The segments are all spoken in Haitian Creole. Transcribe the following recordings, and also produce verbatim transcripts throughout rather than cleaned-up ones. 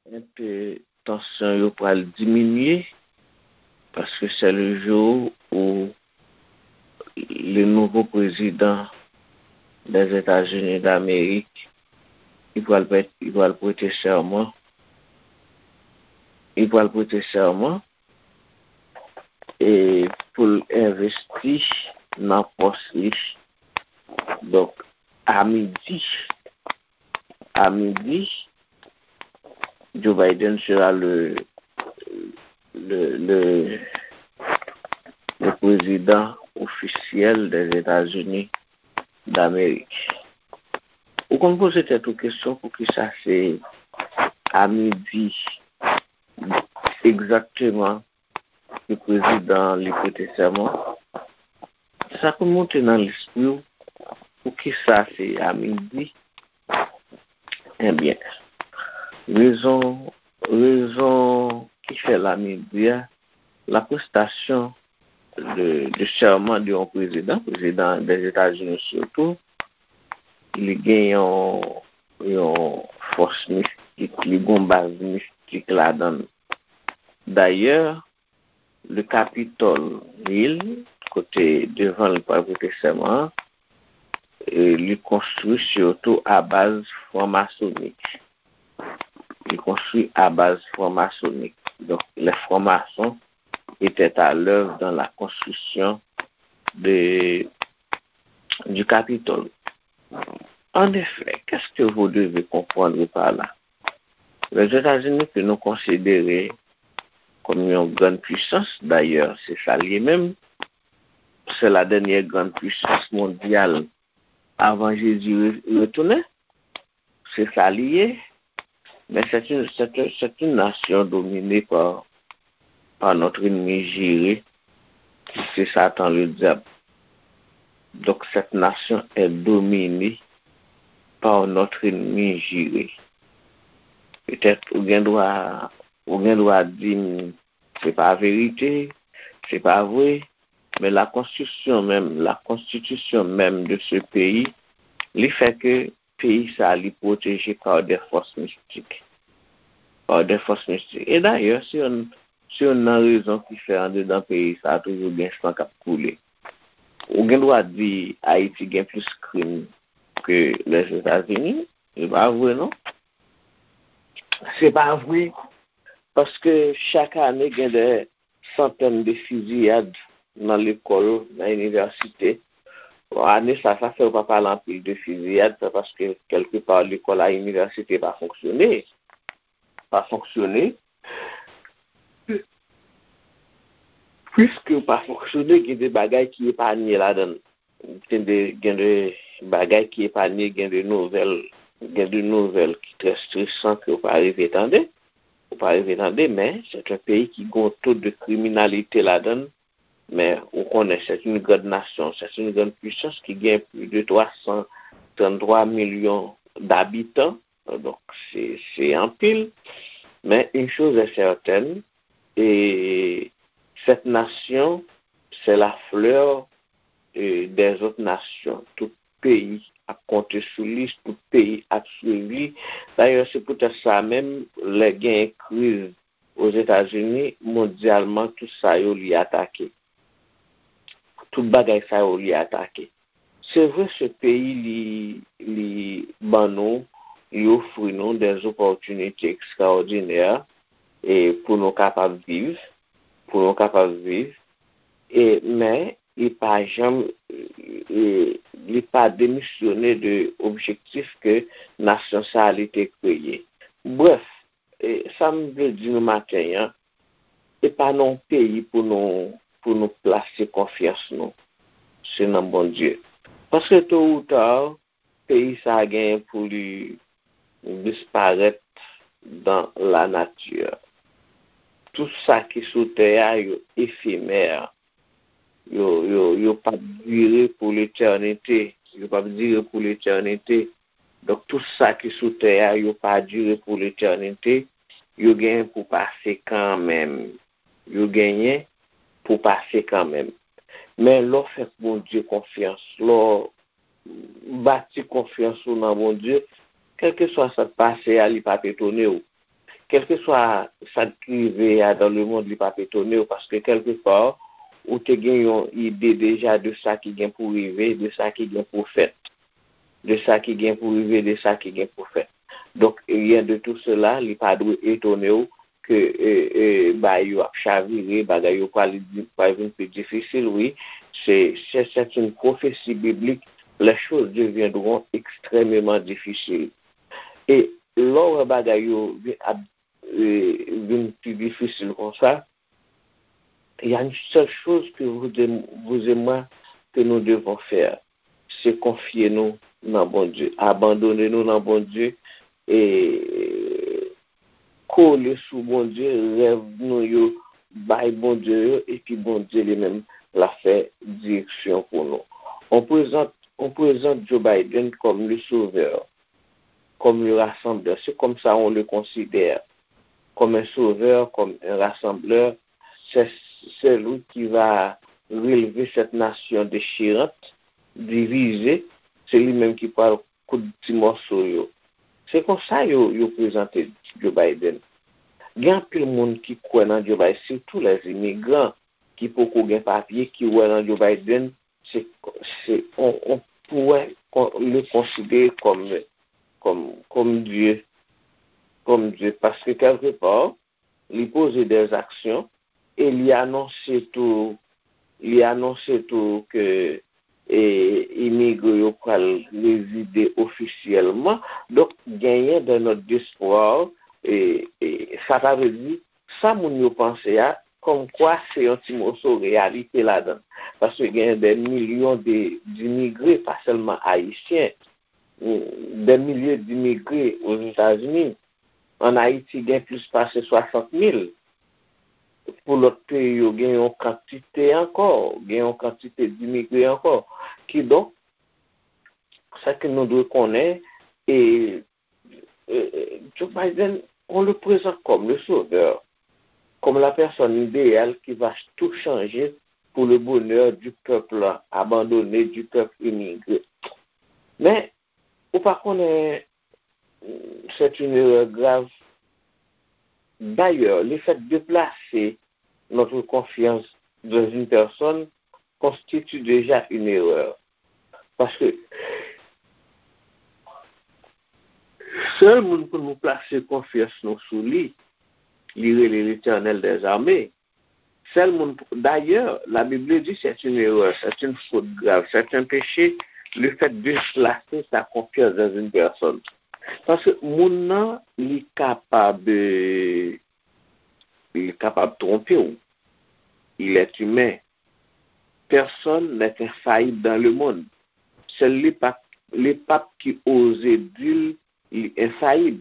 enpe tansyon yo pral diminye, paske c'est le jour où le nouveau président des États-Unis d'Amérique, li pral prè-, li pral prete sèman, li pral prete sèman e pou l envesti nan pòs li. Donk, a midi, a midi, Joe Biden sera le, le, le, le président officiel des États-Unis d'Amérique. Ou konn poze tèt ou kesyon poukisa se a midi egzakteman ke prezidan an li prete sèman? Sa konn monte nan lespri w, poukisa se a midi? Ebyen, rezon, rezon ki fè l a midi a, la prestation de, de serment de yon prezidan, prezidan des États-Unis surtout, li gen yon, yon fòs mistik, li gen yon baz mistik ladan l. Dayè, le Capitol Hill, kote devan l pral prete sèman an, e li konstwi sitou a baz franmasonik. Li konstwi a baz franmasonik. Donk, les francs-maçons étaient à l'œuvre dans la construction de, du Capitole. En effet, qu'est-ce que vous devez comprendre par là? Lèzetazini ke nou konsidere kòm yon grann pwisans, dayè, se sa l ye menm, c'est la dernière grande puissance mondiale avant Jésus re-, retounen, se sa li ye, men c'est une, c'est un, c'est une nation dominée par, par notre ennemi juré, qui c'est Satan le diable. Donc cette nation est dominée par notre ennemi juré. Petèt ou gen dwa, ou gen dwa di m, se pa verite, se pa vre, men la konstriksyon menm, la konstitisyon menm de ce pays, li fè ke peyi sa li pwoteje par des forces mystiques. Par des forces mystiques. E dayè, se youn, se youn nan rezon ki fè andedan peyi sa toujou gen san k ap koule. Ou gen dwa di Ayiti gen plis krim ke Lèzetazini, se pa vre non. Se pa vre, paske chak ane gen de santèn de fiziyad nan lekòl, nan inivèsite. Bon, ane sa, sa fè yo pa pale anpil de fiziyad, se paske kèlkepa lekòl ak inivèsite pa fonksyone. Pa fonksyone. Piske yo pa fonksyone, gen de bagay ki epanye ladan l. Gen de, gen de bagay ki epanye, gen de nouvèl, gen de nouvèl ki trè stresan ke w pa rive tande. Ou pa rive tande, men c'est un pays ki gen yon to de kriminalite ladan l. Men ou konnen, c'est une grande nation, c'est une grande puissance ki gen plus de trois cent trente-trois millions d'habitants. Donk, se, se anpil. Men une chose est certaine, et cette nation, c'est la fleur, euh, des autres nations. Tout peyi ap konte sou li, tout peyi ap swiv li. Dayè, se poutèt sa menm, lè gen kriz Ozetazini, mondyalman, tout sa yo li atake. Tout bagay sa yo li atake. Se vre, se peyi li, li ban nou, li ofri nou des opportunités extraordinaires e pou nou kapab viv, pou nou kapab viv. E, men, li pa janm, e, li pa demisyone de objektif ke nasyon sa a li te kreye. Brèf, e, sa m vle di nou maten an, e pa nan yon peyi pou nou, pou nou plase konfyans nou. Se nan Bondye. Paske to ou ta, peyi sa a genyen pou li disparèt dans la nature. Tout sa ki sou tè a, yo efemè. Yo, yo, yo p ap dire pou letènite. Yo p ap dire pou letènite. Donk, tout sa ki sou tè a, yo pa dire pou letènite. Yo genyen pou pase kanmenm. Yo genyen pou pase kanmenm. Men lè w fè Bondye konfyans, lè w bati konfyans ou nan Bondye, kèlkeswa sa k pase a, li p ap etone w. kèlkeswa sa k rive a dans le monde, li p ap etone w, paske kèlkeswa, ou te gen yon ide deja de sa ki gen pou rive, de sa ki gen pou fèt, de sa ki gen pou rive, de sa ki gen pou fèt. Donk, rien de tout cela, li pa dwe etone w ke, e, e, bagay yo ap chavire, bagay yo pral di, pral vin pi difisil, wi. Se, se, c'est une prophétie biblique. Les choses deviendront extrêmement difficiles. E lè w wè bagay yo vin ap, e, vin pi difisil konsa, il y a une seule chose que vous et, vous et moi, que nous devons faire, se konfye nou nan Bondye, abandone nou nan Bondye, e kole sou Bondye, rèv nou yo bay Bondye yo, epi Bondye li menm l ap fè direksyon pou nou. On prezant, on prezant Joe Biden comme le sauveur, comme le rassembleur. C'est comme ça on le considère, comme un sauveur, comme un rassembleur. C'est celui qui va relever cette nation déchirante, divisée. Se li menm ki pral koud ti mòso yo. Se konsa yo, yo prezante Joe Biden. Gen anpil moun ki kwè nan Joe Biden, sitou lè imigran ki poko gen papye, ki wè nan Joe Biden, se, se, on, on pourrait con-, le considérer comme, comme, comme Dieu, comme Dieu, paske kèlkepar, li poze des actions e li anonse tou, li anonse tou ke, e, imigre yo pral rezide ofisyèlman. Donk, genyen de notes d'espoir, e, e sa ta vle di, sa moun yo panse a, kòmkwa se yon ti moso reyalite ladan. Paske genyen de milyon de, d'imigre, pa sèlman ayisyen, de milye d'imigre Ozetazini. An Ayiti, gen plis pase swasant mil. Pou lòt peyi yo, gen yon kantite ankò, gen yon kantite d'imigre ankò. Kidonk, sa ke nou dwe konnen, e, e, e, Joe Biden, on le présente comme le sauveur, comme la personne idéale qui va tout changer pour le bonheur du peuple abandonné, du peuple immigré. Men, ou pa konnen, c'est une erreur grave. D'ailleurs, le fait de placer notre confiance dans une personne constitue déjà une erreur. Paske sèl moun pou nou plase konfyans nou sou li, li rele Letènèl dèzame. Sèl moun, d'ailleurs, la Bible dit c'est une erreur, c'est une faute grave, c'est un péché, le fait de placer sa confiance dans une personne. Paske moun nan, li kapab, euh, li kapab twonpe w. Il est humain. Personne n'est infaillible dans le monde. Sèl le pap, le pap ki oze di l li enfayib.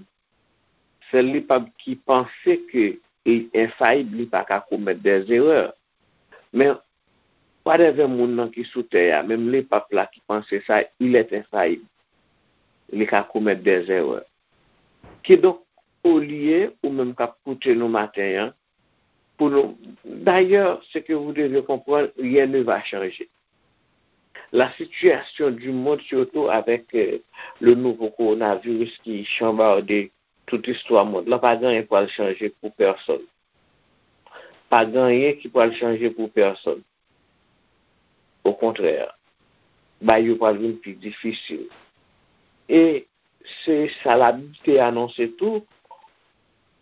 Sèl le pap ki panse ke li enfayib, li pa ka komèt des erreurs. Men, whatever moun nan ki sou tè a, menm le pap la ki panse sa, il est infaillible. Li ka komèt des erreurs. Kidonk, olye ou menm k ap koute nou maten an, pou nou, d'ailleurs, ce que vous devez comprendre, rien ne va changer. La situation du monde, surtout avec, euh, le nouveau coronavirus ki chanbarde tout istwa mond lan, pa gen anyen pral chanje pou pèsonn. Pa gen anyen ki pral chanje pou pèsonn. Okontrè, bagay yo pral vin pi difisil. E se sa Labib te anonse tou,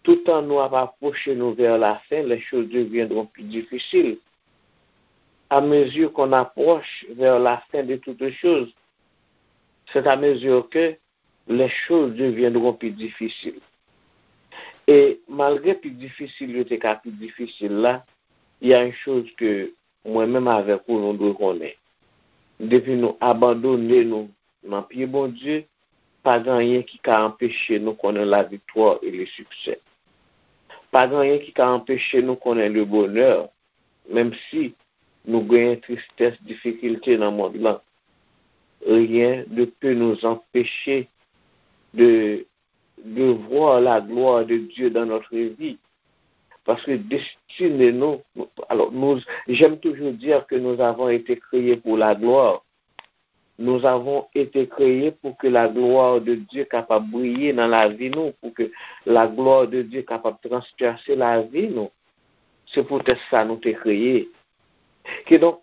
tout an nou ap apwoche nou vers la fin, les choses deviendront plus difficiles. À mesure qu'on approche vers la fin de toutes choses, c'est à mesure que les choses deviendront plus difficiles. E malgre pi difisil yo te ka pi difisil la, il y a une chose que mwen menm avèk ou nou dwe konnen. Depi nou abandone nou nan pye Bondye, pa gen anyen ki ka anpeche nou konnen laviktwa e le siksè. Pa gen anyen ki ka anpeche nou konnen le bonè, menm si nou genyen tristès, difikilte nan mond lan. Rien ne peut nous empêcher de, de voir la gloire de Dieu dans notre vie. Paske destine nou, alò, nou, j'aime toujours dire que nous avons été créés pour la gloire. Nous avons été créés pour que la gloire de Dieu capable briller dans la vie nous, pour que la gloire de Dieu capable transpercer la vie nous. C'est peut-être ça nous t'es créé. Que donc,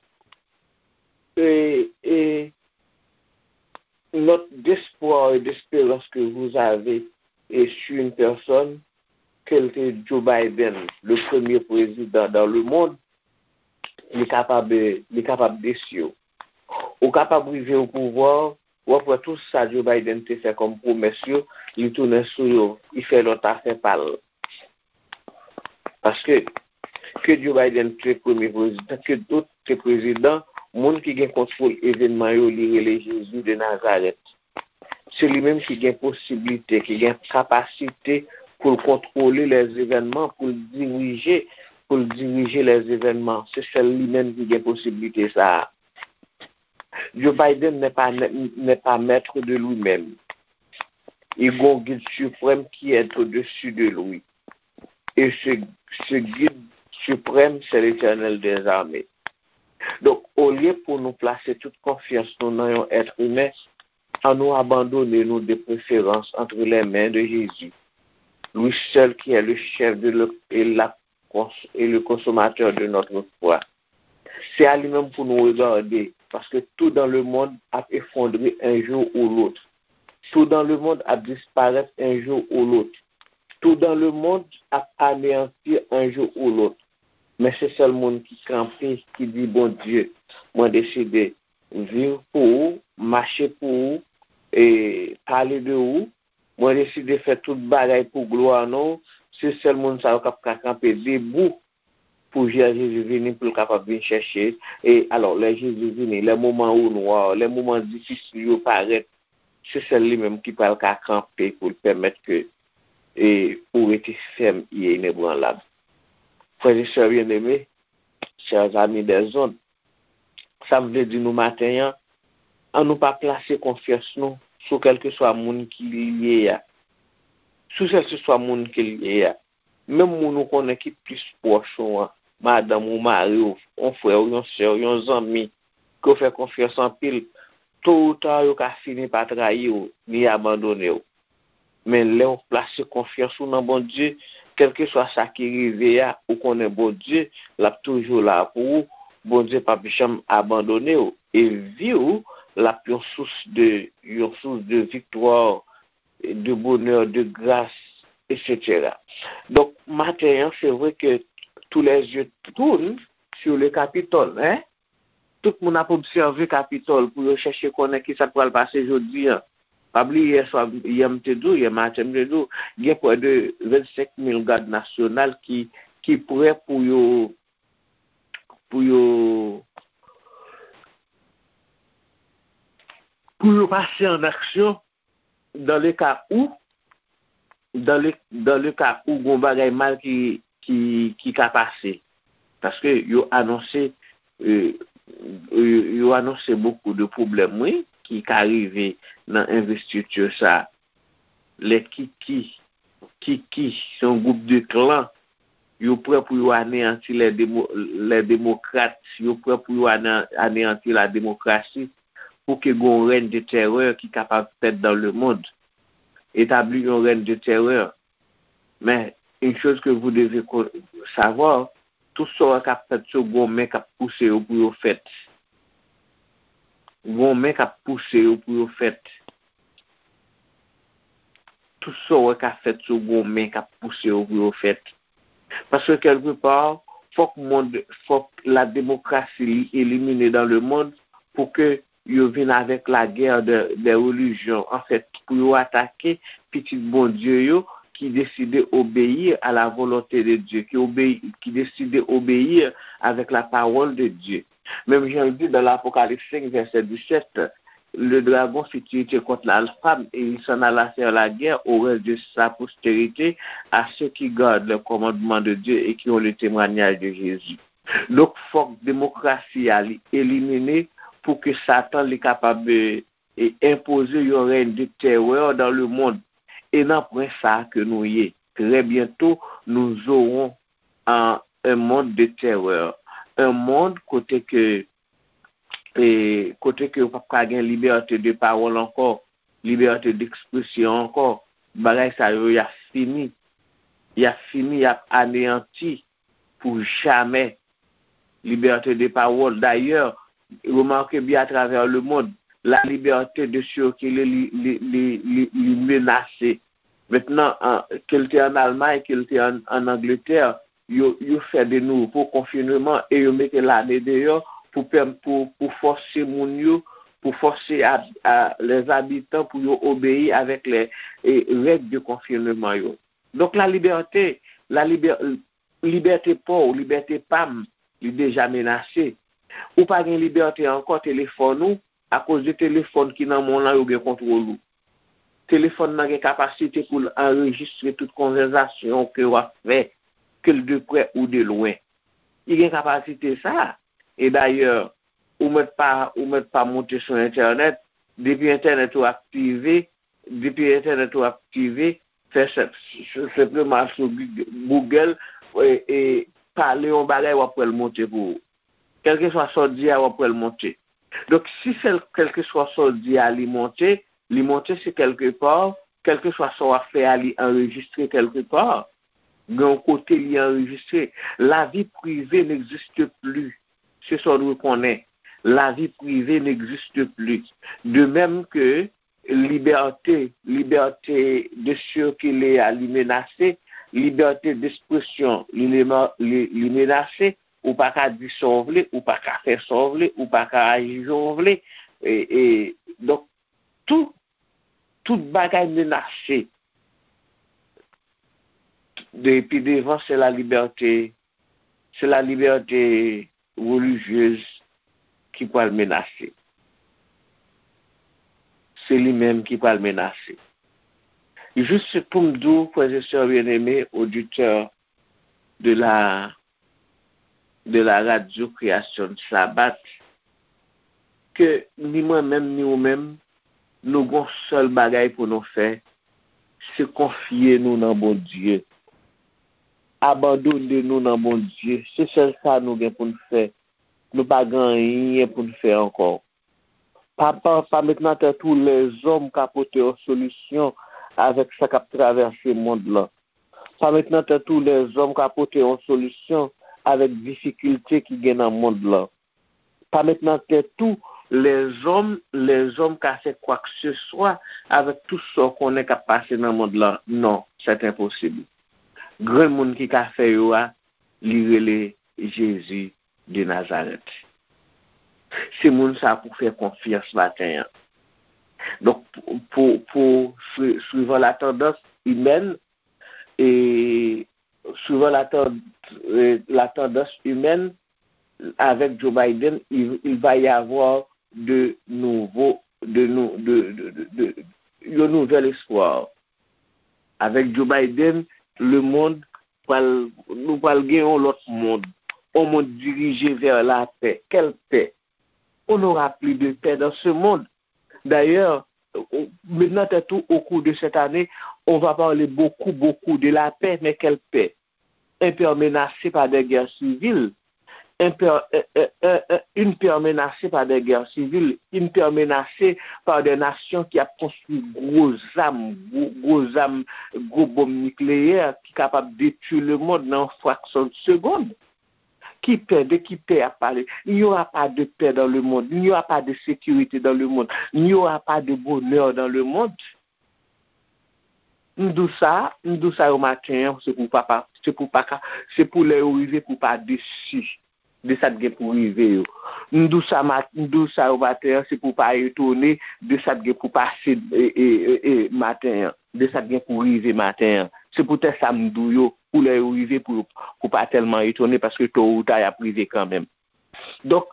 et, et notre d'espoir et d'espérance que vous avez et sur une personne, ke l te Joe Biden, le premye prezidan dans le monde, li kapab, li kapab desi w. Ou kapab rive o pouvwa, w ap wè tout sa Joe Biden te fè kòm pwomès yo, li tounen sou yo, li fè lòt afè pa l. Paske, ke Joe Biden te premye prezidan, ke dòt te prezidan, moun ki gen kontwòl evènman yo, li rele Jezi de Nazarèt. Se li menm ki gen posiblite, ki gen kapasite pou l kontwole lèzevènman, pou l dirije, pou l dirije lèzevènman. Se sèl li menm ki gen posiblite sa a. Joe Biden n'est pas, n'est pas maître de lui-même. Il a un guide suprême qui est au-dessus de lui. Et ce, ce guide suprême, c'est l'Éternel des armées. Donk, olye pou nou plase tout konfyans nou nan yon èt imen, annou abandone nou de preferans entre les mains de Jésus, lui seul qui est le chef de le, et, la, et le consommateur de notre foi. Se a li menm pou nou regade, paske tout dans le monde ap efondre un jour ou l'autre. Tout dans le monde ap disparèt un jour ou l'autre. Tout dans le monde ap aneyanti un jour ou l'autre. Men se sèl moun ki kanpe, ki di, Bondye, mwen deside viv pou ou, mache pou ou, e pale de ou. Mwen deside fè tout bagay pou glwa non w. Se sèl moun sa yo k ap ka kanpe debou pou lè Jezi vini, pou l kapab vin chèche. E alò, lè Jezi vini, lè moman ou nwa, lè moman difisil yo parèt, se sèl li menm ki pral ka kanpe pou l pèmèt ke e ou rete fèm e inebranlab. Frè e sè byeneme, chè zami dèzond, sa m vle di nou maten an, annou pa plase konfyans nou sou kèlkeswa moun ki li ye a. Sou kèlkeswa moun ki li ye a. Menm moun ou konnen ki plis pwòch ou an, madanm ou, mari w, yon frè w, yon sè w, yon zanmi, ke w fè konfyans anpil, to ou ta yo ka fini pa trayi w, ni abandone w. Men lè w plase konfyans ou nan Bondye, kèlkeswa sa ki rive a, ou konnen Bondye, l ap toujou la pou ou. Bondye p ap janm abandone w. E vi w, l ap yon sous de, yon sous de viktwa, de bonè, de gras, et cetera. Donk, maten an, se vre ke tous les yeux tournent sur le Capitole, hein? Tout moun ap obsève Kapitòl pou yo chèche konnen ki sa k pral pase jodi an. Pa bliye yè swa, yè m te di w, yè maten m te di w, gen prè de vennsenk mil gad nasyonal ki, ki prè pou yo, pou yo, pou yo pase an aksyon dans le cas où, dans le, dans le cas où gon bagay mal ki, ki, ki ka pase. Paske yo anonse, euh, yo, yo anonse bokou de pwoblèm, wi, ki ka rive nan envestiti sa. Lè Kiki, Kiki, se yon gwoup de klan, yo prè pou yo aneyanti lè demo-, lè demokrat, yo prè pou yo ane-, aneyanti la demokrasi, pou ke gon rèn de tèrè ki kapab fèt dans le monde. Établir un règne de terreur. Mais une chose que vous devez co-, savoir, tout sa w wè k ap fèt yo, gon men k ap pouse yo pou yo fèt. Gon men k ap pouse yo pou yo fèt. Tout sa w wè k ap fèt yo, gon men k ap pouse yo pou yo fèt. Paske kèlkepa, fòk mond, fòk la demokrasi li elimine dans le monde pou ke yo vin avèk la guerre de, des religions. Anfèt, pou yo atake pitit Bondye yo ki deside obéir à la volonté de Dieu, ki obeyi, ki deside obéir avec la parole de Dieu. Menm jan l di dans l'Apocalypse cinq, verset dix-sept, le dragon fit irriter contre la femme et il s'en alla faire la guerre au reste de sa postérité, à ceux qui gardent les commandements de Dieu et qui ont le témoignage de Jésus. Donk, fòk demokrasi a li elimine pou ke Satan li kapab, e, e enpoze yon règne de terreur dans le monde. Et nan pwen sa ke nou ye. Très bientôt, nous aurons un, un monde de terreur. Un monde kote ke e kote ke yo p ap ka gen libète de pawòl ankò, libète dekspresyon ankò, bagay sa yo, y ap fini. Y ap fini, y ap aneyanti pou jamè. Liberté de parole. D'ailleurs, remarquez bien à travers le monde, la liberté de circuler, li, li, li, li, li menase. Mentnan, an, ke l te ann Almay, ke l te ann, ann Angletè, yo, yo fè de nouvo konfineman e yo mete lame deyò pou, pèm-, pou, pou fòse moun yo, pou fòse a, a, les habitants pou yo obeyi avèk les, e, règ de konfineman yo. Donk, la libète, la libè-, libète pa w, libète pa m, li deja menase. Ou pa gen libète ankò telefòn ou, akoz de telefòn ki nan men w lan, yo gen kontwòl ou. Telefòn nan gen kapasite pou l anrejistre tout konvèsasyon ke w ap fè, ke l de prè ou de lwen. Li gen kapasite sa. E dayè, ou mèt pa, ou mèt pa monte sou entènèt, depi entènèt ou aktive, depi entènèt ou aktive, fè senp, senpleman sou Google, e, e pale yon bagay, w ap wè l monte pou ou. Kèlkeswa sa w di a, w ap wè l monte. Donk, si se kèlkeswa sa w di a, li monte, li monte se kèlke pa, kèlkeswa sa w ap fè a, li anrejistre kèlke pa. Gen yon kote li anrejistre. La vie privée n'existe plus. Se sa w dwe konnen. La vie privée n'existe plus. De même que liberté, liberté de circuler a, li menase, liberté d'expression, li, li, li menase, ou pa ka di sa w vle, ou pa ka fè sa w vle, ou pa ka aji jan w vle. E, e, donk, tout, tout bagay menase. Depi devan, se la libète, se la libète relijyez ki pral menase. Se li menm ki pral menase. Jis pou m di w, frè e sè byeneme, oditè de la, de la radyo Kreyasyon Sabat, ke ni mwen menm, ni ou menm, nou gon sèl bagay pou nou fè, se konfye nou nan Bondye. Abandone nou nan Bondye. Se sèl sa nou gen pou n fè. Nou pa gen anyen pou n fè ankò. Pa, pa, pa met nan tèt ou lèzòm ka pote yon solisyon avèk sa k ap travèse mond lan. Pa met nan tèt ou lèzòm ka pote yon solisyon avèk difikilte ki gen nan mond lan. Pa met nan tèt ou lèzòm, lèzòm ka fè kwakeseswa avèk tout sa w konnen k ap pase nan mond lan. Non, c'est impossible. Grenn moun ki ka fè yo a, li rele Jezi de Nazarèt. Se moun sa pou fè konfyans maten an. Donk, pou, pou, pou sui-, suivant la tendance humaine, e suivant la ten-, e, la tendance humaine, avec Joe Biden, il, il va y avoir de nouveaux, de nou-, de, de, de, de, yon nouvel espoir. Avèk Joe Biden, le monde pral, nou pral gen yon lòt mond. Un monde dirigé vers la paix. Quelle paix? On n'aura plus de paix dans ce monde. D'ailleurs, met nan tèt ou, au cours de cette année, on va parler beaucoup, beaucoup de la paix, mais quelle paix? Un père menacé par des guerres civiles, un père, un, un, un, un, une paix menacée par des guerres civiles, une paix menacée par des nations ki ap konstwi gwo zam, gwo, gwo zam, gwo bonm nikleyè ki kapab detwi lemonn nan yon fraksyon de segonn. Ki pè? De ki pè y ap pale? Il n'y aura pas de paix dans le monde. Il n'y aura pas de sécurité dans le monde. Il n'y aura pas de bonheur dans le monde. M di w sa, m di w sa yo maten an, se pou papa, se pou pa ka, se pou lè yo rive pou pa desi de sa k gen pou rive yo. M di w sa mat-, m di w sa yo maten an, se pou pa etone de sa k gen pou pase, e, e, e, e, maten an, de sa k gen pou rive maten an. Se poutèt sa m di w yo, pou lè yo rive pou, pou pa tèlman etone, paske to ou ta y ap rive kanmenm. Donk,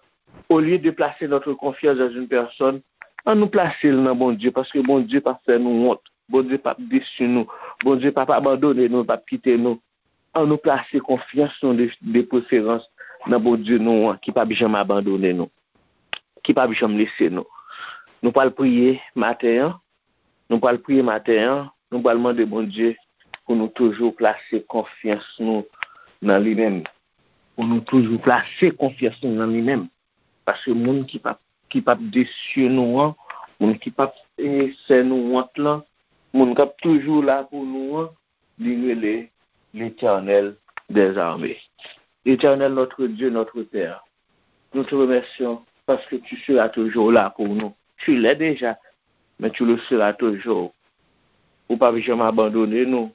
olye de plase notre confiance dans une personne, ann nou plase l nan Bondye, paske Bondye p ap fè nou wont. Bondye p ap desi nou. Bondye p ap abandone nou, p ap kite nou. Ann nou plase konfyans nou de, de preferans nan Bondye nou an, ki p ap janm abandone nou, ki p ap janm lese nou. Nou pral priye maten an. Nou pral priye maten an. Nou pral mande Bondye pou nou toujou plase konfyans nou nan li menm. Pou nou toujou plase konfyans nou nan li menm. Paske moun ki p ap, ki p ap desye nou an, moun ki p ap, e, fè nou wont lan, moun k ap toujou la pou nou an, li rele Letènèl dèzame. Éternel notre Dieu, notre Père, nous te remercions parce que tu seras toujours là pour nous. Tu l'es déjà, mais tu le seras toujours. Ou p ap janm abandone nou,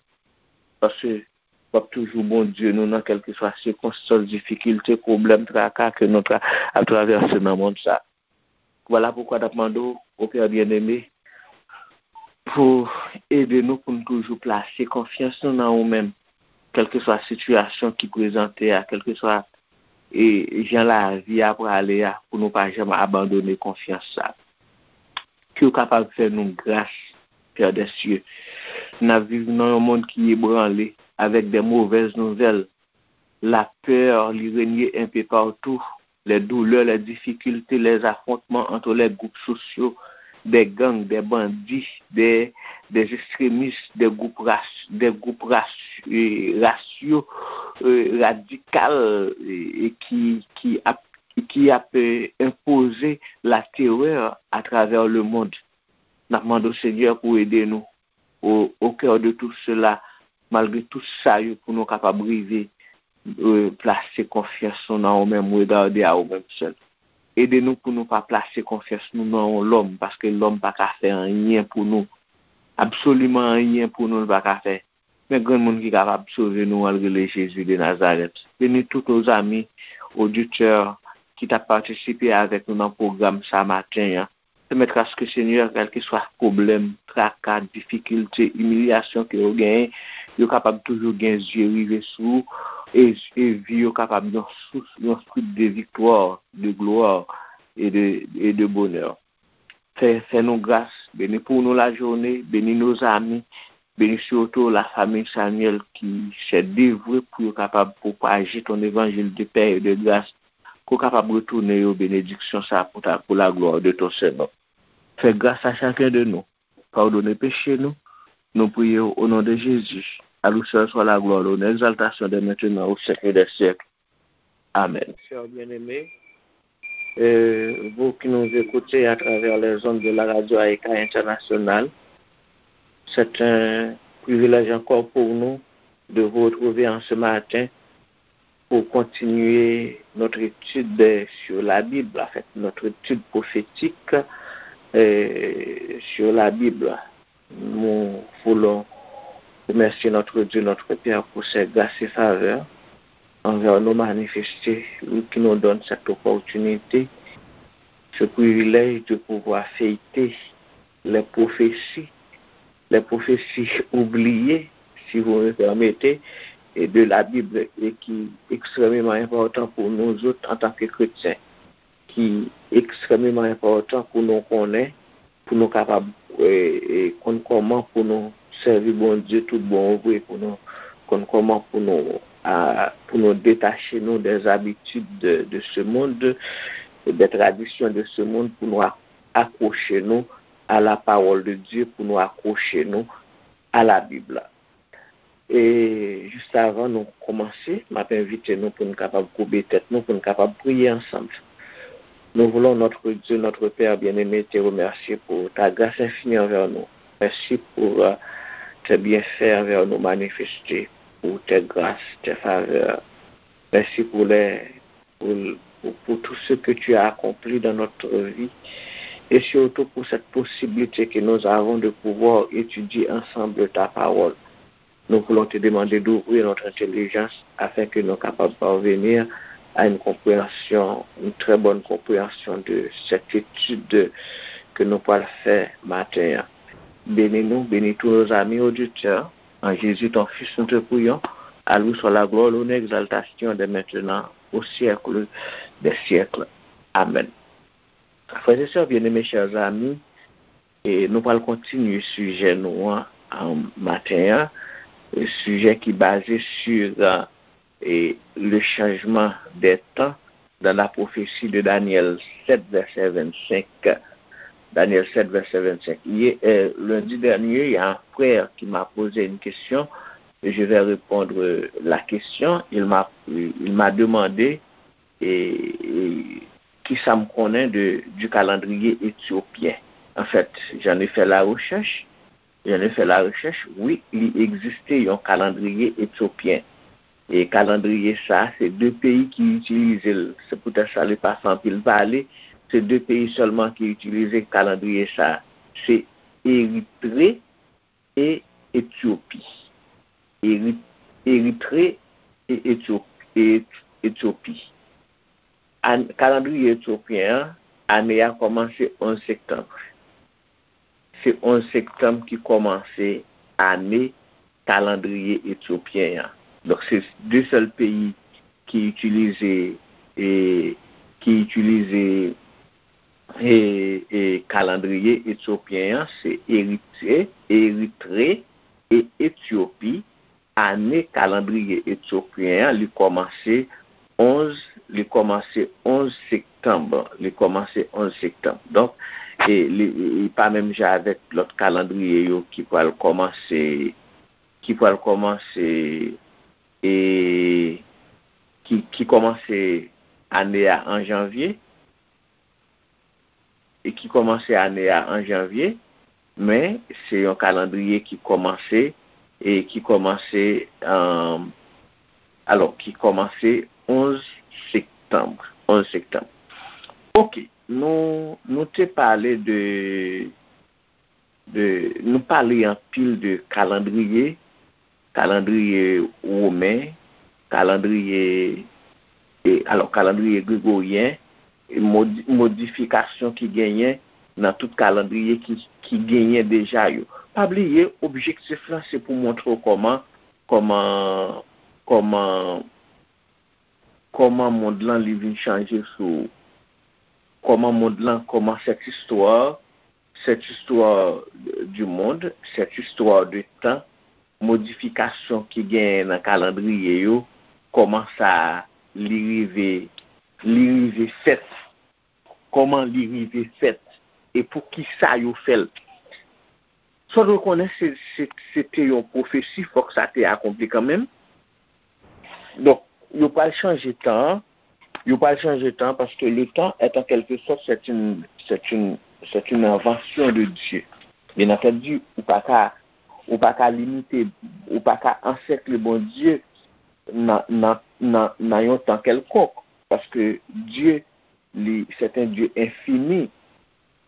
paske w ap toujou Bondye nou nan kèlkeswa sikonstans, difikilte, pwoblèm, traka ke nou tra, ap travèse nan mond sa. Vwala poukwa n ap mande w, o Pè byeneme, pou ede nou pou n toujou plase konfyans nou nan ou menm, kèlkeswa sitiyasyon ki prezante a, kèlkeswa, e, jan lavi a prale a, pou nou pa janm abandone konfyans sa. Ke w kapab fè nou gras, Pè dè sye. N ap viv nan yon mond ki ebranle avèk de movèz nouvèl. Lapè, li renye enpe patou. Les douleurs, les difficultés, les affrontements entre les groupes sociaux, des gangs, des bandits, des, des extrémistes, des groupes raci-, des groupes raci-, euh, raciaux, euh, radikal, euh, e ki, ki ap, ki ap, euh, enpoze la terreur à travers le monde. N ap mande w, Senyè, pou ede nou au, au cœur de tout cela, malgre tout sa yo, pou nou kapab rive, euh, plase konfyans nou nan ou menm, regarder à ou menm sèl. Ede nou pou nou pa plase konfyans nou nan yon lòm, paske lòm pa ka fè anyen pou nou. Absoliman anyen pou nou, l pa ka fè. Men granmoun ki kapab sove nou an, l rele Jezi de Nazarèt. Beni tout nos amis auditeurs ki t ap patisipe avèk nou nan pwogram sa maten an. Pèmèt aske, Senyè, kèlkeswa pwoblèm, traka, difikilte, imilyasyon ke yo genyen, yo kapab toujou gen zye rive sou ou, e, e vi yo kapab yon sous, yon swit de viktwa, de glwa, e de, e de bonè. Fè, fè nou gras, beni pou nou lajounen, beni nos amis, beni sitou la famille Samuel ki se devwe pou yo kapab pwopaje ton évangile de paix et de grâce, pou kapab retounen yo benediksyon sa pou ta, pou la gloire de ton Saint nom. Fè gras a chacun de nous, padone peche nou, nou priye w o non de Jezi. A lui seul soit la gloire, l'honneur, l'exaltation dès maintenant au siècle des siècles. Amen. Chers bien-aimés, euh, vous qui nous écoutez à travers les ondes de la radio Aïka Internationale, c'est un privilège encore pour nous de vous retrouver en ce matin pour continuer notre étude sur la Bible, en fait, notre étude prophétique, euh, sur la Bible. Nous voulons remercier notre Dieu, notre Père, pour ses grâces et faveurs envers nous manifestées, lui qui nous donne cette opportunité, ce privilège de pouvoir fêter les prophéties, les prophéties oubliées, si vous me permettez, et de la Bible, et qui est extrêmement important pour nous autres en tant que chrétiens, ki ekstrèmeman enpòtan pou nou konnen, pou nou kapab, e, e, konn kòman pou nou sèvi Bondye tout bon vre, pou nou konn kòman pou nou, a, pou nou detache nou des habitudes de, de ce monde, des traditions de ce monde, pou nou ak-, akwoche nou à la parole de Dieu, pou nou akwoche nou à la Bible. E jis avan nou kòmanse, m ap envite nou pou n kapab koube tèt nou, pou n kapab priye ansanm. Nous voulons, notre Dieu, notre Père bien-aimé, te remercier pour ta grâce infinie envers nous. Merci pour euh, tes bienfaits envers nous manifestés, pour tes grâces, tes faveurs. Merci pour les, pour, pour, pour tout ce que tu as accompli dans notre vie et surtout pour cette possibilité que nous avons de pouvoir étudier ensemble ta parole. Nous voulons te demander d'ouvrir notre intelligence afin que nous capables parvenir à une compréhension, une très bonne compréhension de cette étude que nous allons faire matin. Bénis-nous, bénis tous nos amis auditeurs. En Jésus, ton Fils, nous te prions. À lui soit la gloire, l'honneur, l'exaltation dès maintenant au siècle des siècles. Amen. Frères et sœurs bien-aimés, chers amis, e nou pral kontinye sijè nou an, an maten an, e sijè ki baze sur, e, le changement des temps dans la prophétie de Daniel sept, verset vingt-cinq. Daniel sept, verset vingt-cinq. Yè, e, lendi dènye, il y a un frère qui m'a posé une question. Je vais répondre la question. Il m'a, il m'a demandé, e, e, Kisa m konnen de, du calendrier éthiopien? Anfèt, j'en ai fait la recherche, j'en ai fait la recherche, wi, li egziste yon kalandriye etyopyen. E kalandriye sa, se de peyi ki itilize l. Se poutèt sa li pa fè anpil pale. Se de peyi sèlman ki itilize kalandriye sa. Se Eritre e Etyopi. Eri-, Eritre e Etyopi. E Etyopi. An-, kalandriye etyopyen an, ane a kòmanse onz septanm. Se onz septanm ki kòmanse ane kalandriye etyopyen an. Donk, se de sèl peyi ki itilize, e, ki itilize, e, e, kalandriye etyopyen an, se Eritre, Eritre e Etyopi. Ane kalandriye etyopyen an, li kòmanse onz, li kòmanse onz septanm. Li kòmanse onz septanm. Donk, e, li, li pa menm jan avèk lòt kalandriye yo ki pral kòmanse, ki pral kòmanse, e, ki, ki kòmanse ane a an janvye, e ki kòmanse ane a an janvye, men se yon kalandriye ki kòmanse, e ki kòmanse, um, alò, ki kòmanse onz septanm, onz septanm. Ok, nou, nou te pale de, de, nou pale anpil de kalandriye, kalandriye women, kalandriye, e, alò, kalandriye gregoryen, e modi-, modifikasyon ki genyen nan tout kalandriye ki, ki genyen deja yo. Pa bliye, objektif lan se pou montre w kòman, kòman, kòman, kòman mond lan li vin chanje sou ou. Kòman mond lan, kòman cette histoire, cette histoire du monde, cette histoire de temps, modifikasyon ki genyen nan kalandriye yo, kòman sa li rive, li rive fèt, kòman li rive fèt, e pou ki sa yo fè l. Sa w dwe konnen, se, se, se te yon pwofesi, fòk sa te akonpli kanmenm. Donk, yo pral chanje tan an, yo pral chanje tan, paske le temps est en quelque sorte, c'est une, c'est une, c'est une invention de Dieu. Bien entendu, ou pa ka, ou pa ka limite, ou pa ka ansèkle Bondye nan, nan, nan, nan yon tan kèlkonk, paske Dye, li, c'est un Dieu infini,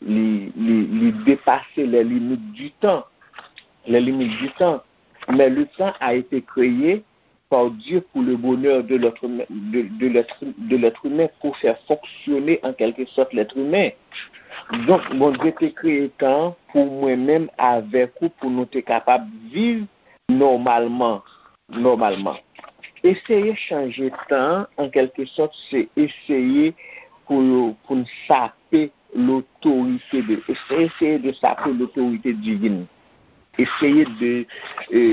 li, li, li depase les limites du temps, les limites du temps. Mais le temps a été créé par Dieu pour le bonheur de l'être humain, de, de l'être, de l'être humain, pour faire fonctionner en quelque sorte l'être humain. Donk, Bondye te kreye tan pou mwen menm avèk ou, pou nou te kapab viv nòmalman, nòmalman. Eseye chanje tan an, an kèlke sòt, se eseye pou, pou n sape l'autorité de, eseye de sape l'autorité divine. Eseye de, e,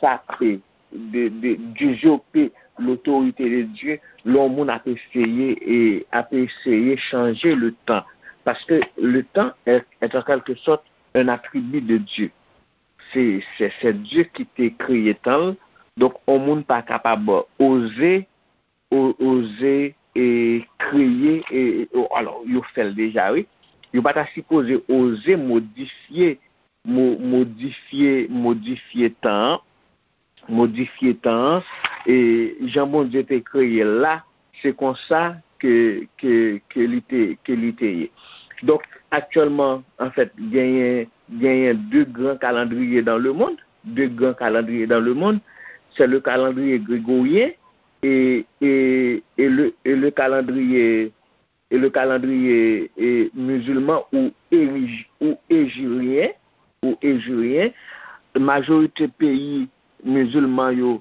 sape, de, de, d'usurper l'autorité de Dieu, lè yon moun ap eseye, e, ap eseye chanje le temps. Paske le temps est, est en quelque sorte un attribut de Dieu. Se, se, se Dye ki te kreye tan l. Donk, yon moun pa kapab oze, o-, oze, e, kreye, e, e, o-, alò, yo fè l deja, wi. Yo pa ta sipoze oze modifye, mo-, modifye, modifye tan an, modifye tan an, e jan Bondye te kreye l la, se konsa ke, ke, ke li te, ke li te ye. Donk, aktyèlman, anfèt, genyen, genyen de gran kalandriye dans le monde, de gran kalandriye dans le monde, c'est le calendrier grégorien et, et, et le, et le calendrier, et le calendrier, e, musulman ou érij-, ou éjiryen, ou éjiryen. Majorite peyi mizilman yo,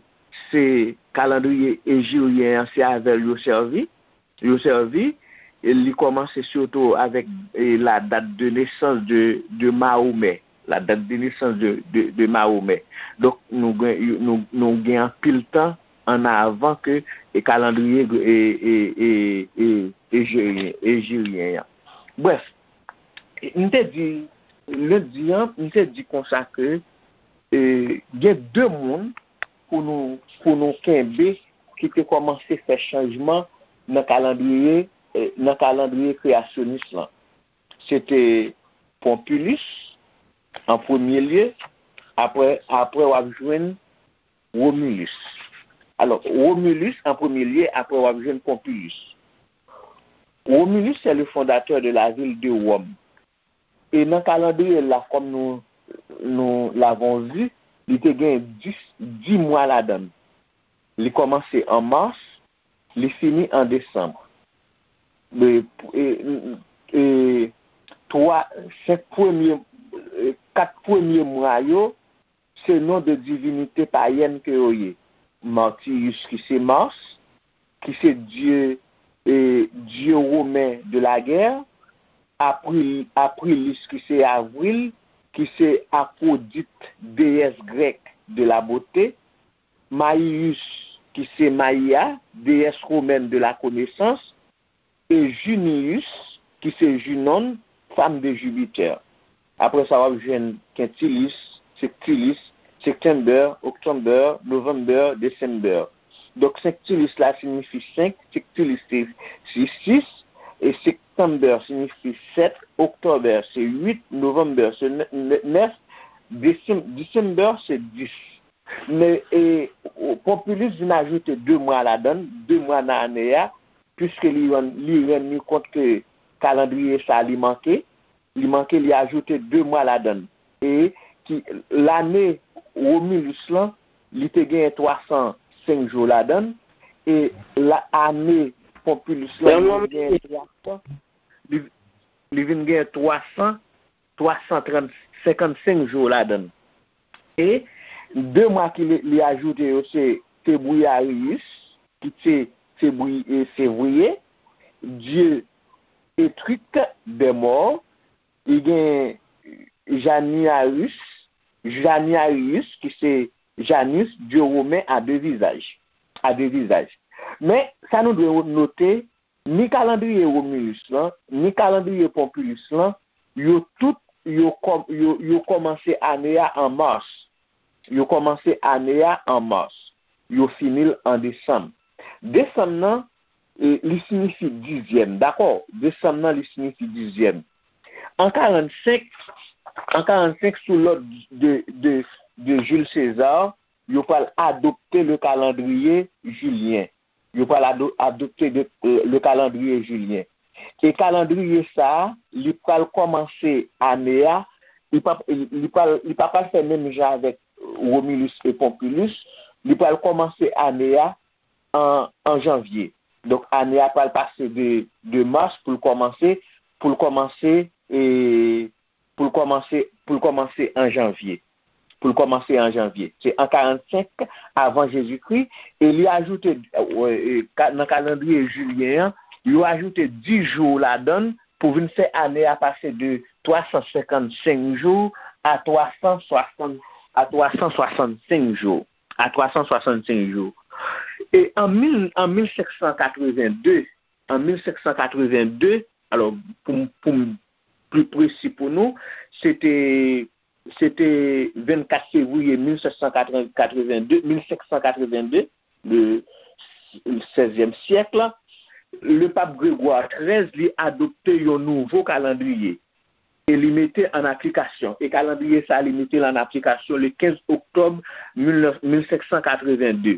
se kalandriye éjiryen an, se avè l yo sèvi, yo sèvi, e li kòmanse sitou avèk, e, la date de naissance de, de Mahomet, la date de naissance de, de, de Mahomet. Donk, nou gen, nou, nou gen anpil tan an avan ke, e, kalandriye, e, e, e, e, éjiryen, éjiryen an. Brèf, m te di, lendi an, m te di konsa ke, e, gen de moun pou nou, pou nou kenbe ki te kòmanse fè chanjman nan kalandriye, e, nan kalandriye kreyasyonis lan. Se te Pompilus an premye lye, apre, apre w ap jwenn Romulus. Alò, Romulus an premye lye, apre w ap jwenn Pompilus. Romulus, c'est le fondateur de la ville de Rome. E nan kalandriye la, kòm nou, nou l'avons vu, li te gen dis, dis mwa ladan l. Li kòmanse an mas, li fini an desanm. E, e, e, twa, senk premye, e, kat premye mwa yo, se non de divinite payèn ke yo ye. Martius ki se Mars, ki se dye, e, dye women de la guerre, April, Aprilis ki se Avril, ki se Aphrodite, déesse grecque de la beauté, Maius ki se Maia, déesse romaine de la connaissance, e Junius, ki se Junon, femme de Jupiter. Apre sa, w ap jwenn Quintilis, Sextilis, September, October, November, December. Donk, Sextilis la siyifi senk, Sextilis se, se sis, e September siyifi sèt, October se uit, November se nè-, nè-, nèf, Decem-, December se dis. Men, e, Pompilus vin ajoute de mwa ladan l, de mwa nan ane a, piske li rann, li rann li kont ke kalandriye sa a li manke, li manke, li ajoute de mwa ladan l. E ki lane Romulus lan, li te genyen twa san senk jou ladan l, e la, ane Pompilus lan, li vin genyen twa san, li, li vin genyen twa san, twa san trant, senkannsenk jou ladan l. E de mwa ki li, li ajoute yo se Februarius, ki se Febri-, e, Fevriye, dye etrik dè mò, li gen Januarius, Januarius, ki se Janus, dye women a de vizaj, a de vizaj. Men, sa nou dwe note, ni kalandriye Romulus lan, ni kalandriye Pompilus lan, yo tout, yo kò-, yo, yo kòmanse ane a an mas. Yo kòmanse ane a an mas. Yo fini l an desanm. Desanm nan, e, li siyifi dizyèm, dakò? Desanm nan, li siyifi dizyèm. An karannsenk, an karannsenk, sou lòd de, de, de Jules César, yo pral adopte le calendrier julien. Yo pral ado-, adopte de, euh, le calendrier julien. E kalandriye sa a, li pral kòmanse ane a, li pa, li pral, li pa pral fè menm jan avèk Romulus e Pompilus, li pral kòmanse ane a an, an janvye. Donk, ane a pral pase de, de mas pou l kòmanse, pou l kòmanse, e, pou l kòmanse, pou l kòmanse an janvye. Pou l kòmanse an janvye. Se an karannsenk avan Jezikri, e li ajoute, e, e, ka-, nan kalandriye jilyen an, yo ajoute dis jou ladan l pou vin fè ane a pase de twa san senkannsenk jou a twa san swasant, a twa san swasannsenk jou. A twa san swasannsenk jou. E an mil, an mil senk san katreven de, an mil senk san katreven de, alò, pou m, pou m pli presi pou nou, se te, se te vennkat fevriye mil senk san katreven de, mil senk san katreven de, le sèzyèm syèk, le pap Gregwa trèz, li adopte yon nouvo kalandriye e li mete an aplikasyon. E kalandriye sa, li mete l an aplikasyon le kenz oktòb mil nèf, mil senk san katreven de.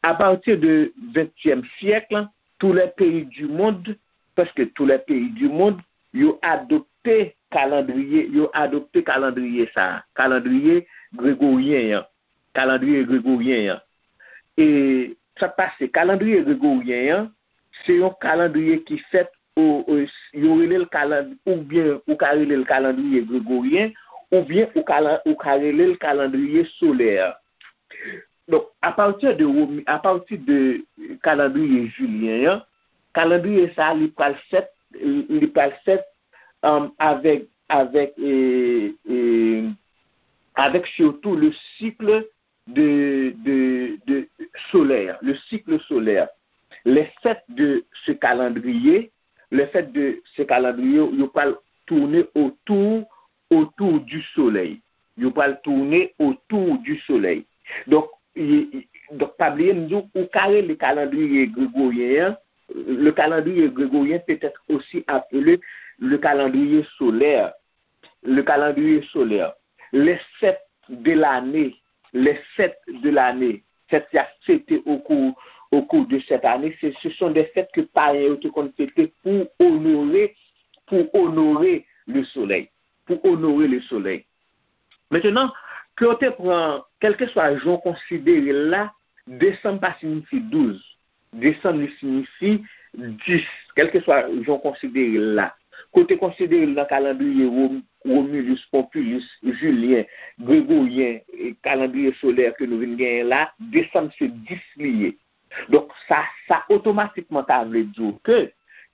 A pati de ventyèm syèk, tous les pays du monde, prèske tous les pays du monde, yo adopte kalandriye, yo adopte kalandriye sa, kalandriye gregoryen an, kalandriye gregoryen an. E sa k pase, kalandriye gregoryen an, se yon kalandriye ki fèt, o, o, yo rele l kaland-, oubyen ou ka rele l kalandriye gregoryen, oubyen ou ka, ou ka rele l kalandriye solè. Donk, apati de Romi-, apati de kalandriye jilyen an, kalandriye sa a, li pral fèt, li pral fèt, um, avèk, avèk, e, e, avèk sitou le cycle de, de, de solaire, le cycle solaire. Le fait de ce calendrier, le fait de ce calendrier, yo pral tourner autour, autour du soleil. Yo pral tourner autour du soleil. Donk, e, e, donk, pa bliye m di w, ou ka rele kalandriye gregoryen an, le calendrier grégorien peut être aussi appelé le calendrier solaire. Le calendrier solaire. Les fêtes de l'année, les fêtes de l'année, fèt y ap fete au cours, au cours de cette année, ce, ce sont des fêtes que payen yo te konn fete pour honorer, pour honorer le soleil, pour honorer le soleil. Mentnan, ke w te pran, kèlkeswa jan w konsidere l la, desanm pa siyifi douz. Desanm li siyifi dis, kèlkeswa jan w konsidere l la. Ke w te konsidere l nan kalandriye Rom-, Romulus, Pompilus, Julien, Grégorien, e kalandriye solè ke nou vin genyen la, desanm se dis li ye. Donk, sa, sa otomatikman ta vle di w ke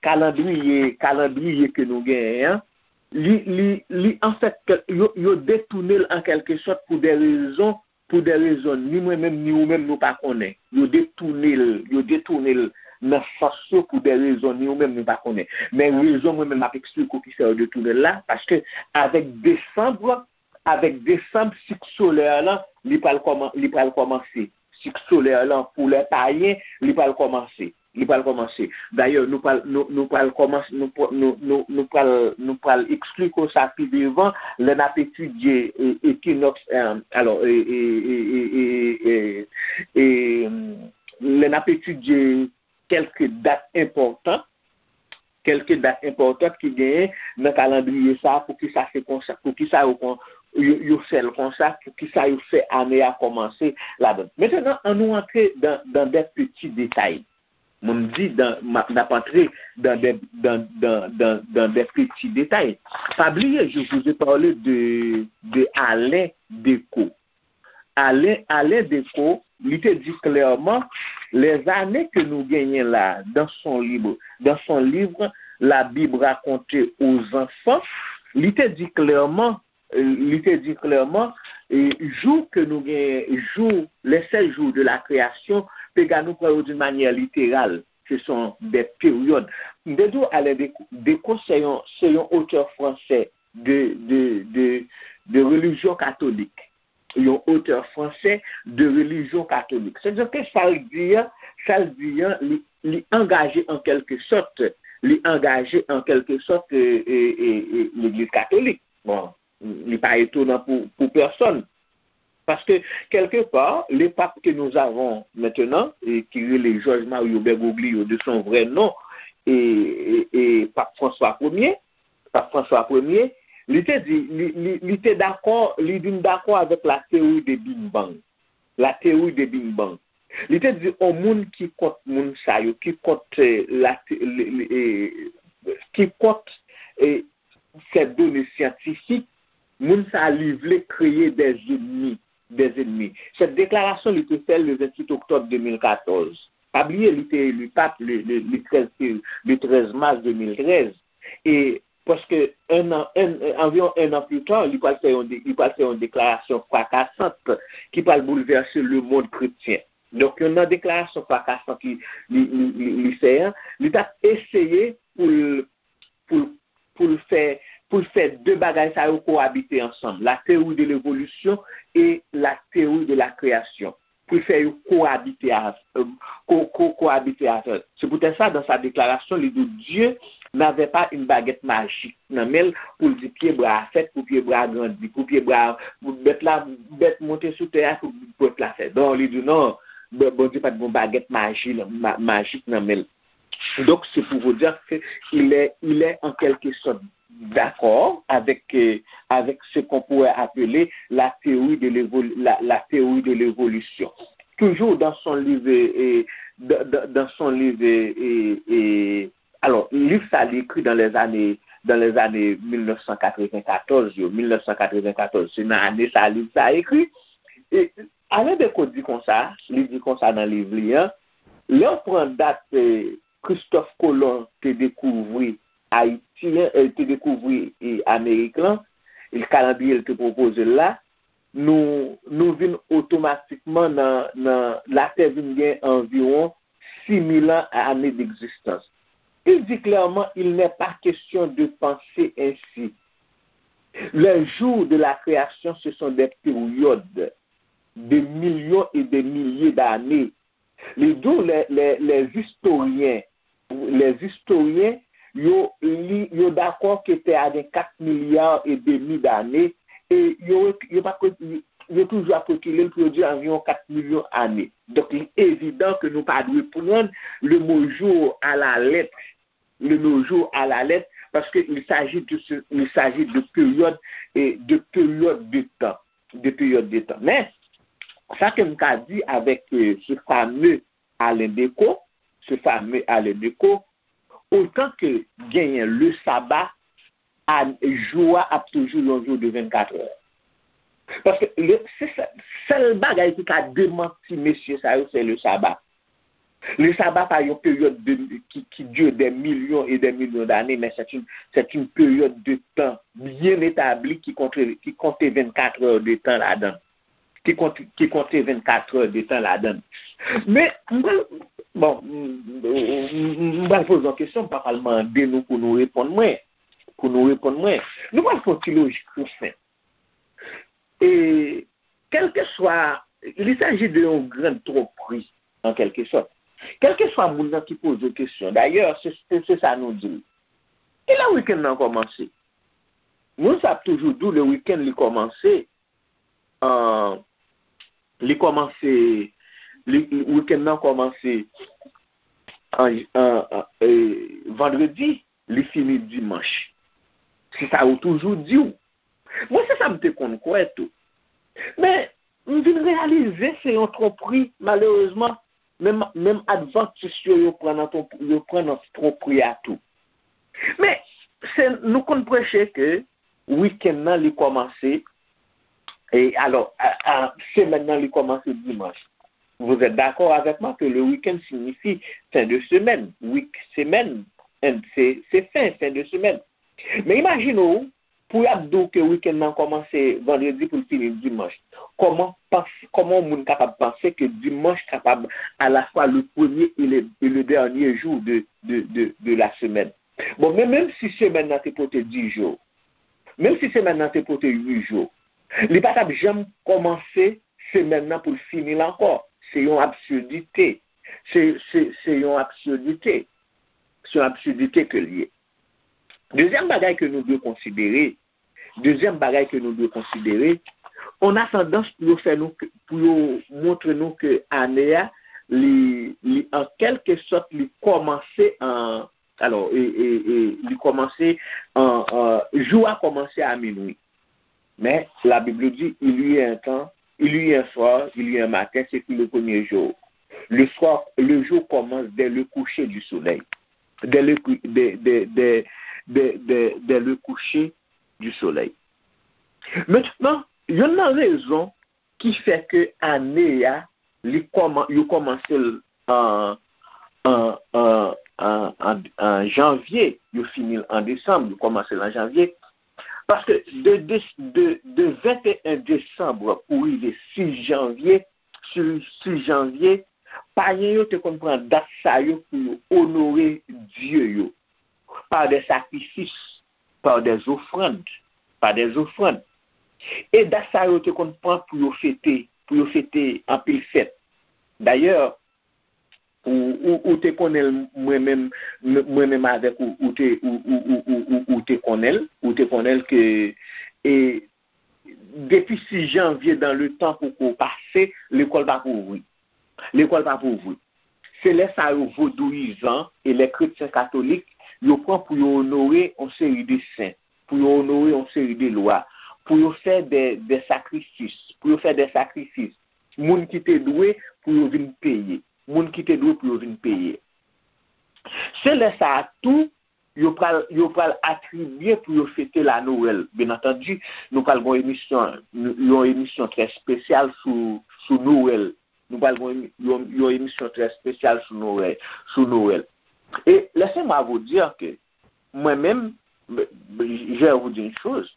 kalandriye, kalandriye ke nou genyen an, li, li, li, anfèt, yo, yo detounen l an kèlke sòt pou de rezon, pou de rezon ni mwen menm, ni ou menm, nou pa konnen. Yo detounen l, yo detounen l nan sans yo pou de rezon ni ou menm, nou pa konnen. Men rezon mwen menm m ap eksplike w ki fè yo detounen l la, paske avèk desanm, avèk desanm, sik solè lan, li pral kòman-, li pral kòmanse. Sik solè lan, pou lè payen, li pral kòmanse. Li pral kòmanse. Dayè, nou pral, nou, nou pral kòmanse, nou, pr-, nou, nou, nou pral, nou pral eksplike w sa pi devan, lè n ap etidye, e, ekinòks, e, alò, e, e, e, e, e, e, e, lè n ap etidye kèlke dat enpòtan, kèlke dat enpòtan ki genyen nan kalandriye sa a, poukisa se konsa, poukisa yo kon, yo, yo fè l konsa, poukisa yo fè ane a kòmanse ladan. Mentnan, ann nou antre dan, dan de peti detay. Mwen m di dan, m ap, n ap antre dan de, dan, dan, dan, dan de peti detay. Pa bliye, je vous ai parlé de, de Alain Decaux. Alain, Alain Decaux, li te di klèman, les années que nous gagnons là, dans son livre, dans son livre, La Bible racontée aux enfants, li te di klèman, li te di klèman, e, jou ke nou gen, jou, les sept jours de la création, piga nou pran yo d'une manière littérale, ce sont des périodes. M te di w, Alain Decaux, Decaux, se yon, se yon otè fransè de, de, de, de relijyon katolik. Yon otè fransè de relijyon katolik. Sètadi ke sa l di an, sa l di an, li, li angaje an kèlke sòt, li angaje an kèlke sòt, e, e, e, e, legliz katolik. Bon, li pa etonan pou, pou pèsonn. Paske, kèlke pa, le pape que nous avons maintenant, e ki rele Georges Mario Bergoglio de son vrai nom, e, e, e Pape François Premier, Pape François Premier, li te di, li, li, li te dakò, li vin dakò avèk la théorie de Big Bang. La théorie de Big Bang. Li te di, on moun ki kont moun sa yo, ki kont, eh, la, le, le, eh, ki kont, eh, ces données scientifiques, moun sa li vle kreye des ennemis, des ennemis. Cette déclaration, li te fè le vingt-huit octobre deux mille quatorze. Pa bliye, li te eli pap le, le, le treize, le treize mars deux mille treize. E prèske un an, un, anviwon un an plus tard, li pral fè yon de-, li pral fè yon deklarasyon frakasant ki pral boulvèse le monde chrétien. Donk, yon nan deklarasyon frakasan ki li, li, li, li fè an, li t ap eseye pou l, pou l, pou l fè, pou l fè de bagay sa yo koabite ansanm, la théorie de l'évolution et la théorie de la création. Pou l fè yo koabite a, euh, ko, ko, koabite ansanm. C'est pour ça, dans sa déclaration, li di Dieu n'avait pas une baguette magique nan men l pou l di pye bwa a fèt, pou pye bwa a grandi, pou pye bwa a, pou bèt la, bèt monte sou tè a, pou bèt la fèt. Non, li di non, Bondye pa t gen yon bagèt maji, ma-, majik nan men l. Donc, c'est pour vous dire que il est, il est en quelque sorte d'accord avec, euh, avec ce qu'on pourrait appeler la théorie de l'évol-, la, la théorie de l'évolution. Toujours dans son livre, euh, dans, dans, dans son livre, euh, euh, alò, liv sa li ekri dans les années, dans les années mil nèf san katreven katòz yo, mil nèf san katreven katòz, se nan ane sa liv sa ekri. E Alain Decaux di konsa, li di konsa nan liv li an, lè w pran dat, eh, Christophe Colomb te dekouvri Ayiti an, eh, te dekouvri, eh, Amerik lan, e kalandriye l te pwopoze l la, nou, nou vin otomatikman nan, nan, Latè vin gen anviwon six mille ans, années d'existence. Il dit clairement, il n'est pas question de penser ainsi. Les jours de la création, ce sont des périodes de millions et des milliers d'années. Les, d'où les, les, les historiens lèzistoryen, yo, li, yo dakò ke tè a gen kat milya e demi dane, e yo, yo pa, yo toujou ap rekile l pou yo di anviwon kat milyon ane. Donk, li evidan ke nou pa dwe pran le mot jour à la lettre, le mot jour à la lettre, parce que il s'agit de ce, il s'agit de période, et de période de temps, de période de temps. Men, sa ke m ka di avèk, euh, ce fameux Alain Decaux, ce fameux Alain Decaux, otan ke genyen le sabbat, a, jou a ap toujou yon jou de vennkat è. Paske le, se sè-, sèl bagay ki ka demanti mesye sa yo, se le sabbat. Le sabbat pa yon peryòd de, ki, ki dure des millions et des millions d'années, mais c'est une, c'est une période de temps bien établie qui compte, qui compte vennkat è de tan ladan. Ki konte, ki konte vennkat è de tan ladan. Men, m pral, bon, m, m, m pral poze yon kesyon, m pa pral mande nou pou nou reponn mwen, pou nou reponn mwen. Nou pral fè yon ti lojik tou senp. E, kèlkeswa, il s'agit de yon grand tromperie, en quelque sorte. Kèlkeswa moun nan ki poze w kesyon, dayè, se, se, se sa nou di l. Kilè wikenn nan kòmanse? Moun sa ap toujou di w le wikenn li kòmanse, an, li kòmanse, li, li, wikenn nan kòmanse an, an, an, e, vandredi, li fini dimanch. Se sa yo toujou di w. Mwen, se sa m te konn kwè tou. Men, m vin reyalize se yon twonpri, malerezman. Menm, menm advantis yo, yo pran nan twonp-, yo pran nan twonpri a tou. Men, se, nou konn preche ke wikenn nan, li kòmanse, e alò, a, a, semèn nan, li kòmanse dimanch. Vous êtes d'accord avec moi que le week-end signifie fin de semaine? Week, semèn, and se, se fin, fin de semaine. Men imajine w, pou y ap di w ke wikenn nan kòmanse vandredi pou l fini dimanch. Kòman pans-, kòman yon moun kapab panse ke dimanch kapab à la fois le premier et le, et le dernier jour de, de, de, de la semaine? Bon, men menm si semèn nan te pote dis jou, menm si semèn nan te pote uit jou, li pa t ap janm kòmanse semèn nan pou l fini l ankò. Se yon absidite. Se, se, se yon absidite. Se yon absidite ke l ye. Dezyèm bagay ke nou dwe konsidere, dezyèm bagay ke nou dwe konsidere, on a tandans pou yo fè nou, pou yo montre nou ke ane a, li, li an kèlke sòt, li kòmanse an, alò, e, e, e, li kòmanse an, an, jou a kòmanse a minwi. Mais la Bible dit, il y a un temps, il y a un soir, il y a un matin, ce fut le premier jour. Le soir, le jour commence dès le coucher du soleil. Dès le cou-, dès, dès, dès, dès, dès, dès le coucher du soleil. Mentnan, youn nan rezon ki fè ke ane a, li kòman-, yo kòmanse l an, an, an, an, an, an janvye, yo fini l an desanm, yo kòmanse l an janvye. Paske de, de, de, de venteyen desanm pou rive sis janvye, sis, sis janvye, payen yo te konn pran dat sa yo pou yo onore dye yo, par des sacrifices, par des offrandes, par des offrandes. E dat sa yo te konn pran pou yo fete, pou yo fete anpil fèt. Dayè, ou, ou, ou te konnen l, mwen menm, m-, mwen menm avèk ou, ou te, ou, ou, ou, ou, ou, ou te konnen l, ou te konnen l ke, e, depi sis janvye dans le temps poko pase, lekòl pa pou ouvri. Lekòl pa pou ouvri. Se lè sa yo vodouyizan e lè kretyen katolik, yo pran pou yo onore yon seri de sen, pou yo onore yon seri de lwa, pou yo fè de, de sakrifis, pou yo fè de sakrifis. Moun ki te dwe pou yo vin peye. Moun ki te dwe pou yo vin peye. Se lè sa a tou, yo pral, yo pral atribye pou yo fete la Nwèl. Byen antandi, nou pral gen yon emisyon, yon emisyon trè espesyal sou, sou Nwèl. Nou pral gen yon, yon, yon emisyon trè espesyal sou Nwèl, sou Nwèl. Et laissez-moi vous dire que mwen menm, je vais vous dire une chose,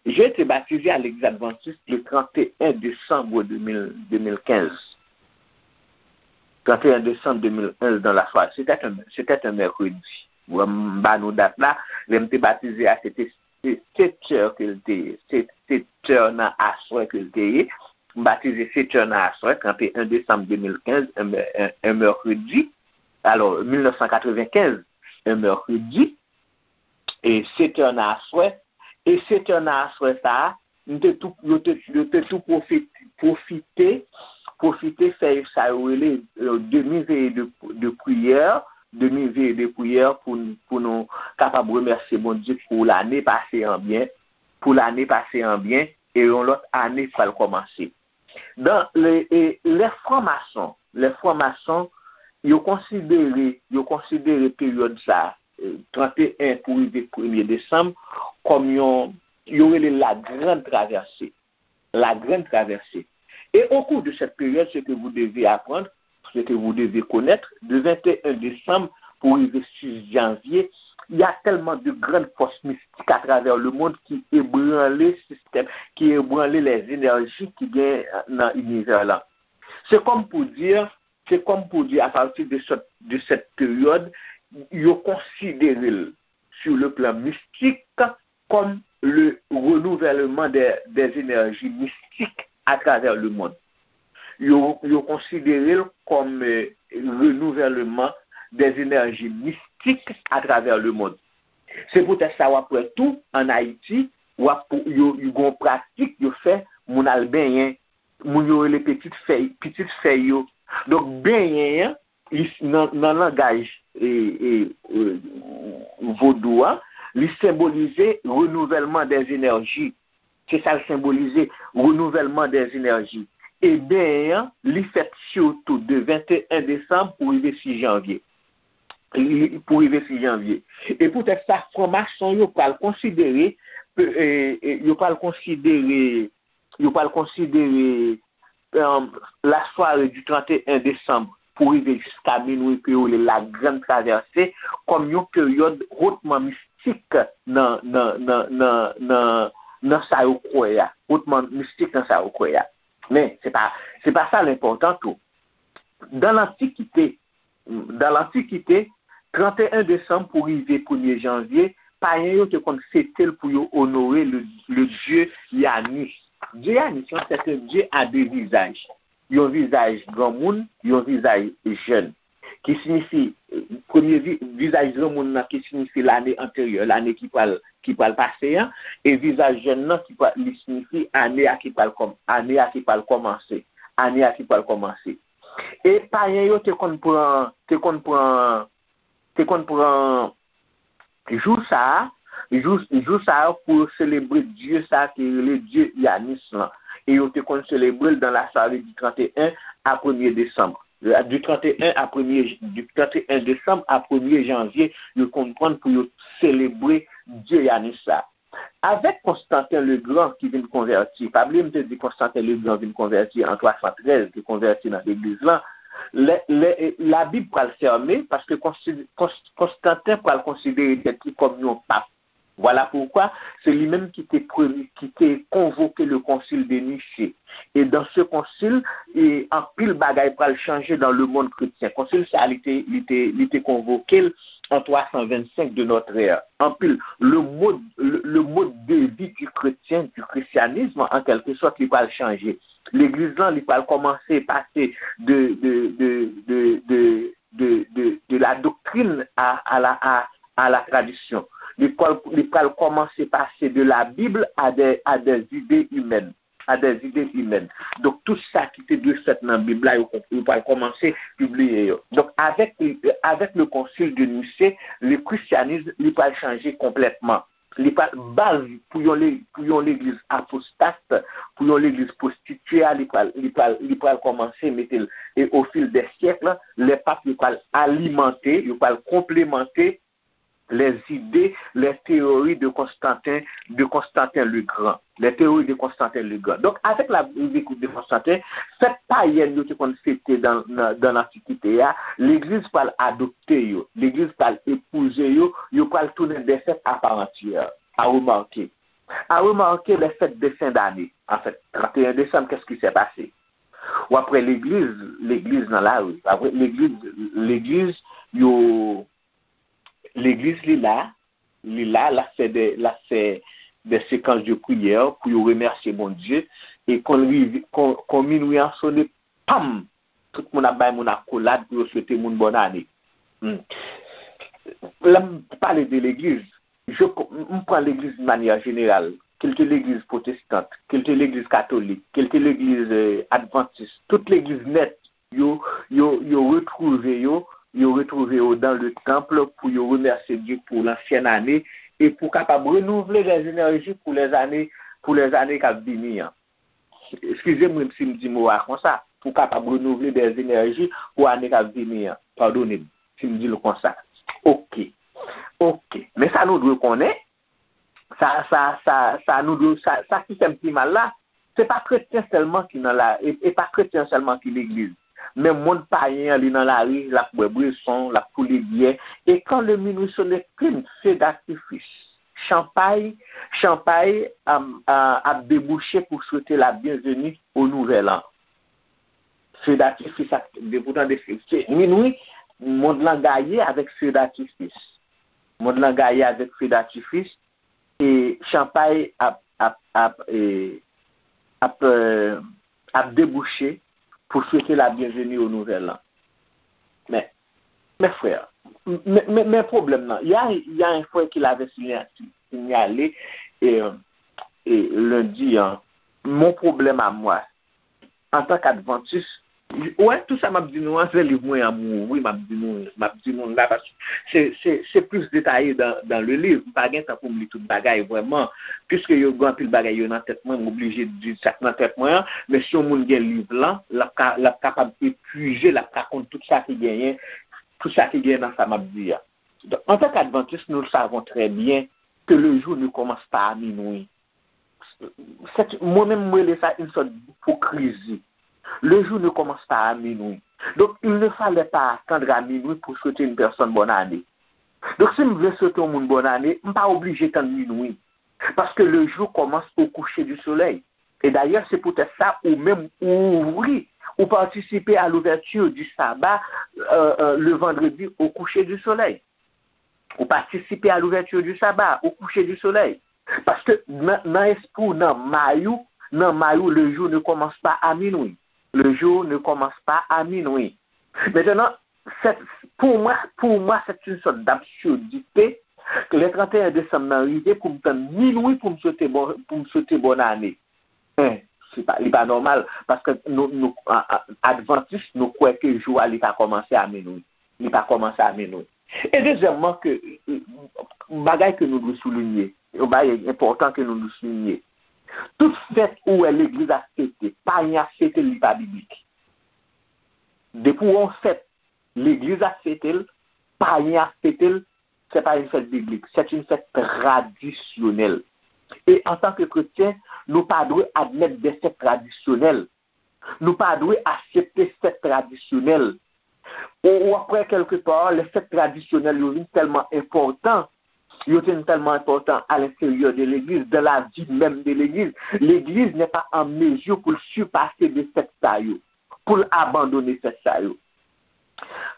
j'ai été baptisé à l'Église adventiste le trente et un décembre deux mille, deux mille quinze. Trente et un décembre deux mille quinze dans la soirée. C'était un, c'était un mercredi. Bon, m ba nou dat la, lè m te batize a, se te, se sèt è ke l te ye. Se sèt è nan aswè ke l te ye. M batize sèt è nan aswè, trente et un décembre deux mille quinze, un, un, un mercredi. alò, mil nèf san katrevenkenz, un mercredi, e sèt è nan aswè, e sèt è nan aswè sa a, m te tou, yo te, yo te tou pwofite, pwofite, pwofite fè sa yo rele, euh, demi veye de, de priyè, demi veye de priyè pou, pou nou kapab remèsye Bondye pou lane pase an byen, pou lane pase an byen, e yon lòt ane pral kòmanse. Dan le, e, lè franmason, lè franmason, yo konsidere, yo konsidere peryòd sa, e, trannteyen pou rive premye desanm, kòm yon, yo rele la grande traversée. La grande traversée. Et au cours de cette période, ce que vous devez apprendre, ce que vous devez connaître, de vingt et un décembre pour rive six janvier, il y a tellement de grandes forces mystiques à travers le monde qui ébranlent système, qui ébranlent les énergies ki gen nan inivè la. Se kòm pou di, se kòm pou di, à partir de cette, de cette période, yo konsidere l sur le plan mystique comme le renouvellement des, des énergies mystiques à travers le monde. Yo, yo konsidere l kòm, euh, renouvellement des énergies mystiques à travers le monde. Se poutèt sa w ap wè tou, ann Ayiti, w ap, yo, yo gen yon pratik, yo fè, moun al benyen, moun yo rele pitit fèy, pitit fèy yo. Donk, benyen an, li, nan, nan langaj, e, e, e, vodou a, li senbolize renouvèlman dèz enèji. Se sa l senbolize, renouvèlman dèz enèji. E benyen an, li fèt sitou de venteyen desanm pou rive sis janvye. Li, pou rive sis janvye. E poutèt sa, franmason yo pral konsidere, e, e, yo pral konsidere, yo pral konsidere, euh, la soirée du trente et un décembre pou rive jiska minwi ke yo rele la grande traversée, kòm yon peryòd hotman mistik nan, nan, nan, nan, nan, nan sa yo kwè a, hotman mistik nan sa yo kwè a. Men, se pa, se pa sa l enpòtan tou. Dan lantikite, dan lantikite, trannteyen desanm pou rive premye janvye, payen yo te konn fete l pou yo onore le, le dieu Yanis. Dieu Yanis lan, c'est un dieu à deux visages. Yon vizaj granmoun, yon vizaj jèn. Ki siyifi, premye vi-, vizaj granmoun nan ki siyifi lane anteryè, lane ki pral, ki pral pase an, e vizaj jèn nan ki pral, li siyifi ane a ki pral kòm-, ane a ki pral kòmanse, ane a ki pral kòmanse. E payen yo te konn pran, te konn pran, te konn pran jou sa a, jou, jou sa a pou yo selebre dye sa a ki rele dye Yanis lan. E yo te konn selebre l dans la soirée du trente et un à premier décembre. Du trente et un à premier, du trente et un décembre à premier janvier, yo konn pran pou yo selebre dye Yanis sa. Avèk Konstanten Legran ki vin konvèti, pa bliye m te di Konstanten Legran vin konvèti an twa san trèz, te konvèti nan legliz lan, lè, lè, Labib pral fèmen, paske Konsi-, Kons-, Konstanten pral konsidere tèt li kòm yon pap. Vwala poukwa, se li menm ki te premye, ki te konvoke le Concile de Nicée. E dans ce concile, e anpil bagay pral chanje dans le monde chrétien. Konsil sa a, li te, li te, li te konvoke l an twa san vennsenk de notre ère. Anpil, le mode, le, le mode de vie du chrétien, du christianisme, en quelque sorte, li pral chanje. Legliz lan, li pral kòmanse pase de, de, de, de, de, de, de, de la doctrine à, à la, à, à la tradition. Li pral, li pral kòmanse pase de la Bible à des, à des idées humaines, à des idées humaines. Donk, tout sa ki te dwe fèt nan Bib la, yo, yo pral kòmanse pibliye yo. Donk, avèk, avèk le Concile de Nicée, le christianisme, li pral chanje konplètman. Li pral, baz pou yon le-, pou yon legliz apostat, pou yon legliz pwostitye a, li pral, li pral, li pral kòmanse mete l. E au fil des siècles, lè pap yo pral alimante, yo pral konplemante les idées, les théories de Constantin, de Constantin le Grand. Les théories de Constantin le Grand. Donk, avèk la, l'arrivée de Constantin, fèt payèn yo te konn fete dan, nan, dan lantikite a, legliz pral adopte yo, legliz pral epouze yo, yo pral tounen des fêtes à part entière. À remarquer. À remarquer les fêtes de fin d'année. En fait, trente et un décembre, qu'est-ce qui s'est passé? W ap wè legliz, legliz nan lari. W ap wè legliz, legliz, yo, legliz li la, li la, l ap fè de, l ap fè de séquences de prière pou yo remèsye Bondye. E kon l rive, kon, kon minwi an sone, pam! Tout moun ap bay moun akolad pou yo swete moun bòn ane. hmm, lè m pale de legliz, je, m pran legliz de manière générale, ke l te legliz pwotestant, ke l te legliz katolik, ke l te legliz eh, advantis, tout legliz nèt, yo, yo, yo retwouve yo, yo retwouve yo dans le temple pou yo remèsye Dye pou lansyen ane e pou kapab renouvle des énergies pou les années, pou les années k ap vini an. Eskize mwen si m di mo a konsa, pou kapab renouvle des énergies pou ane k ap vini an. Padone m si m di l konsa. Oke. Oke. Men sa nou dwe konnen, sa, sa, sa, sa nou dwe, sa, sa ki fè m pi mal la, se pa kretyen sèlman ki nan la, e, e pa kretyen sèlman ki legliz. Men mond payen an, li nan lari, l ap bwè bweson, l ap koule byè. E quand le minuit sonne, plim, feu d'artifice, chanpay, chanpay ap, ap debouche pou swete la byenveni o nouvèl an. Feu d'artifice ap, depi w tande se minwi, mond lan gaye avèk feu d'artifice. Mond lan gaye avèk feu d'artifice e chanpay ap, ap, ap, e, ap, e, ap debouche pou swete la byenveni o nouvèl an. Men, mes frères, men, men, men pwoblèm nan, il y a, il y a un frère qui l'avait signa- signalé, e, e, lendi an, mon problème à moi, antan k advantis, wè, tout sa m ap di nou an, se liv mwen an m ouvri, m ap di nou, m ap di nou la, paske se, se, se plis detaye dans, dans le livre. M pa gen tan pou m li tout bagay vrèman, piske yo gen anpil bagay yo nan tèt mwen, m oblije di sa k nan tèt mwen an, men si yon moun gen liv lan, l ap ka, l ap kapab epuize, l ap ka konn tout sa ki genyen, tout sa ki genyen nan sa m ap di a. Donk, antan k advantis, nous le savons très bien que le jour ne commence pas à minuit. Mwen menm, mwen rele sa une sorte d'hypocrisie. Le jour ne commence pas à minuit. Donc, il ne fallait pas attendre à minuit pour souhaiter une personne bonne année. Donk, si m vle swete yon moun bonn ane, m pa oblije tann minwi. Paske le jour commence au coucher du soleil. E dayè, se poutèt sa, ou menm, ou ouvri, ou participe à l'ouverture du sabbat euh, euh, le vendredi au coucher du soleil. Ou participe à l'ouverture du sabbat au coucher du soleil. Paske nan, nan espri w, nan may ou, nan may ou, le jour ne commence pas à minuit. Le jour ne commence pas à minuit. Maintenant, c'est, pour moi, pour moi, c'est une sorte d'absurdité. Le trente et un décembre nan rive pou m tann minwi pou m swete bon, pou m swete bonn ane. Hein, se pa, li pa nòmal, paske nou, nou, a, a, advantis, nou kwè ke jou a li pa kòmanse a minwi. Li pa kòmanse a minwi. E dezyèmman, ke, e, bagay ke nou dwe soulinye, yon bagay enpòtan ke nou dwe soulinye. Tout fèt ou wè legliz ap fete, payen ap fete l, li pa biblik. Depi w wè yon fèt, legliz ap fete l, payen ap fete l, c'est pas une fête biblique, c'est une fête traditionnelle. E antan ke kretyen, nou pa dwe admèt de fèt tradisyonèl. Nou pa dwe aksepte fèt tradisyonèl. Ou, ou ap wè kèlkepa, lè fèt tradisyonèl yo vin tèlman enpòtan, yo vin tèlman enpòtan à l'intérieur de l'église, dans la vie même de l'église. L'église n'est pas en mesure pou l sipase de fèt sa yo, pou l abandone fèt sa yo.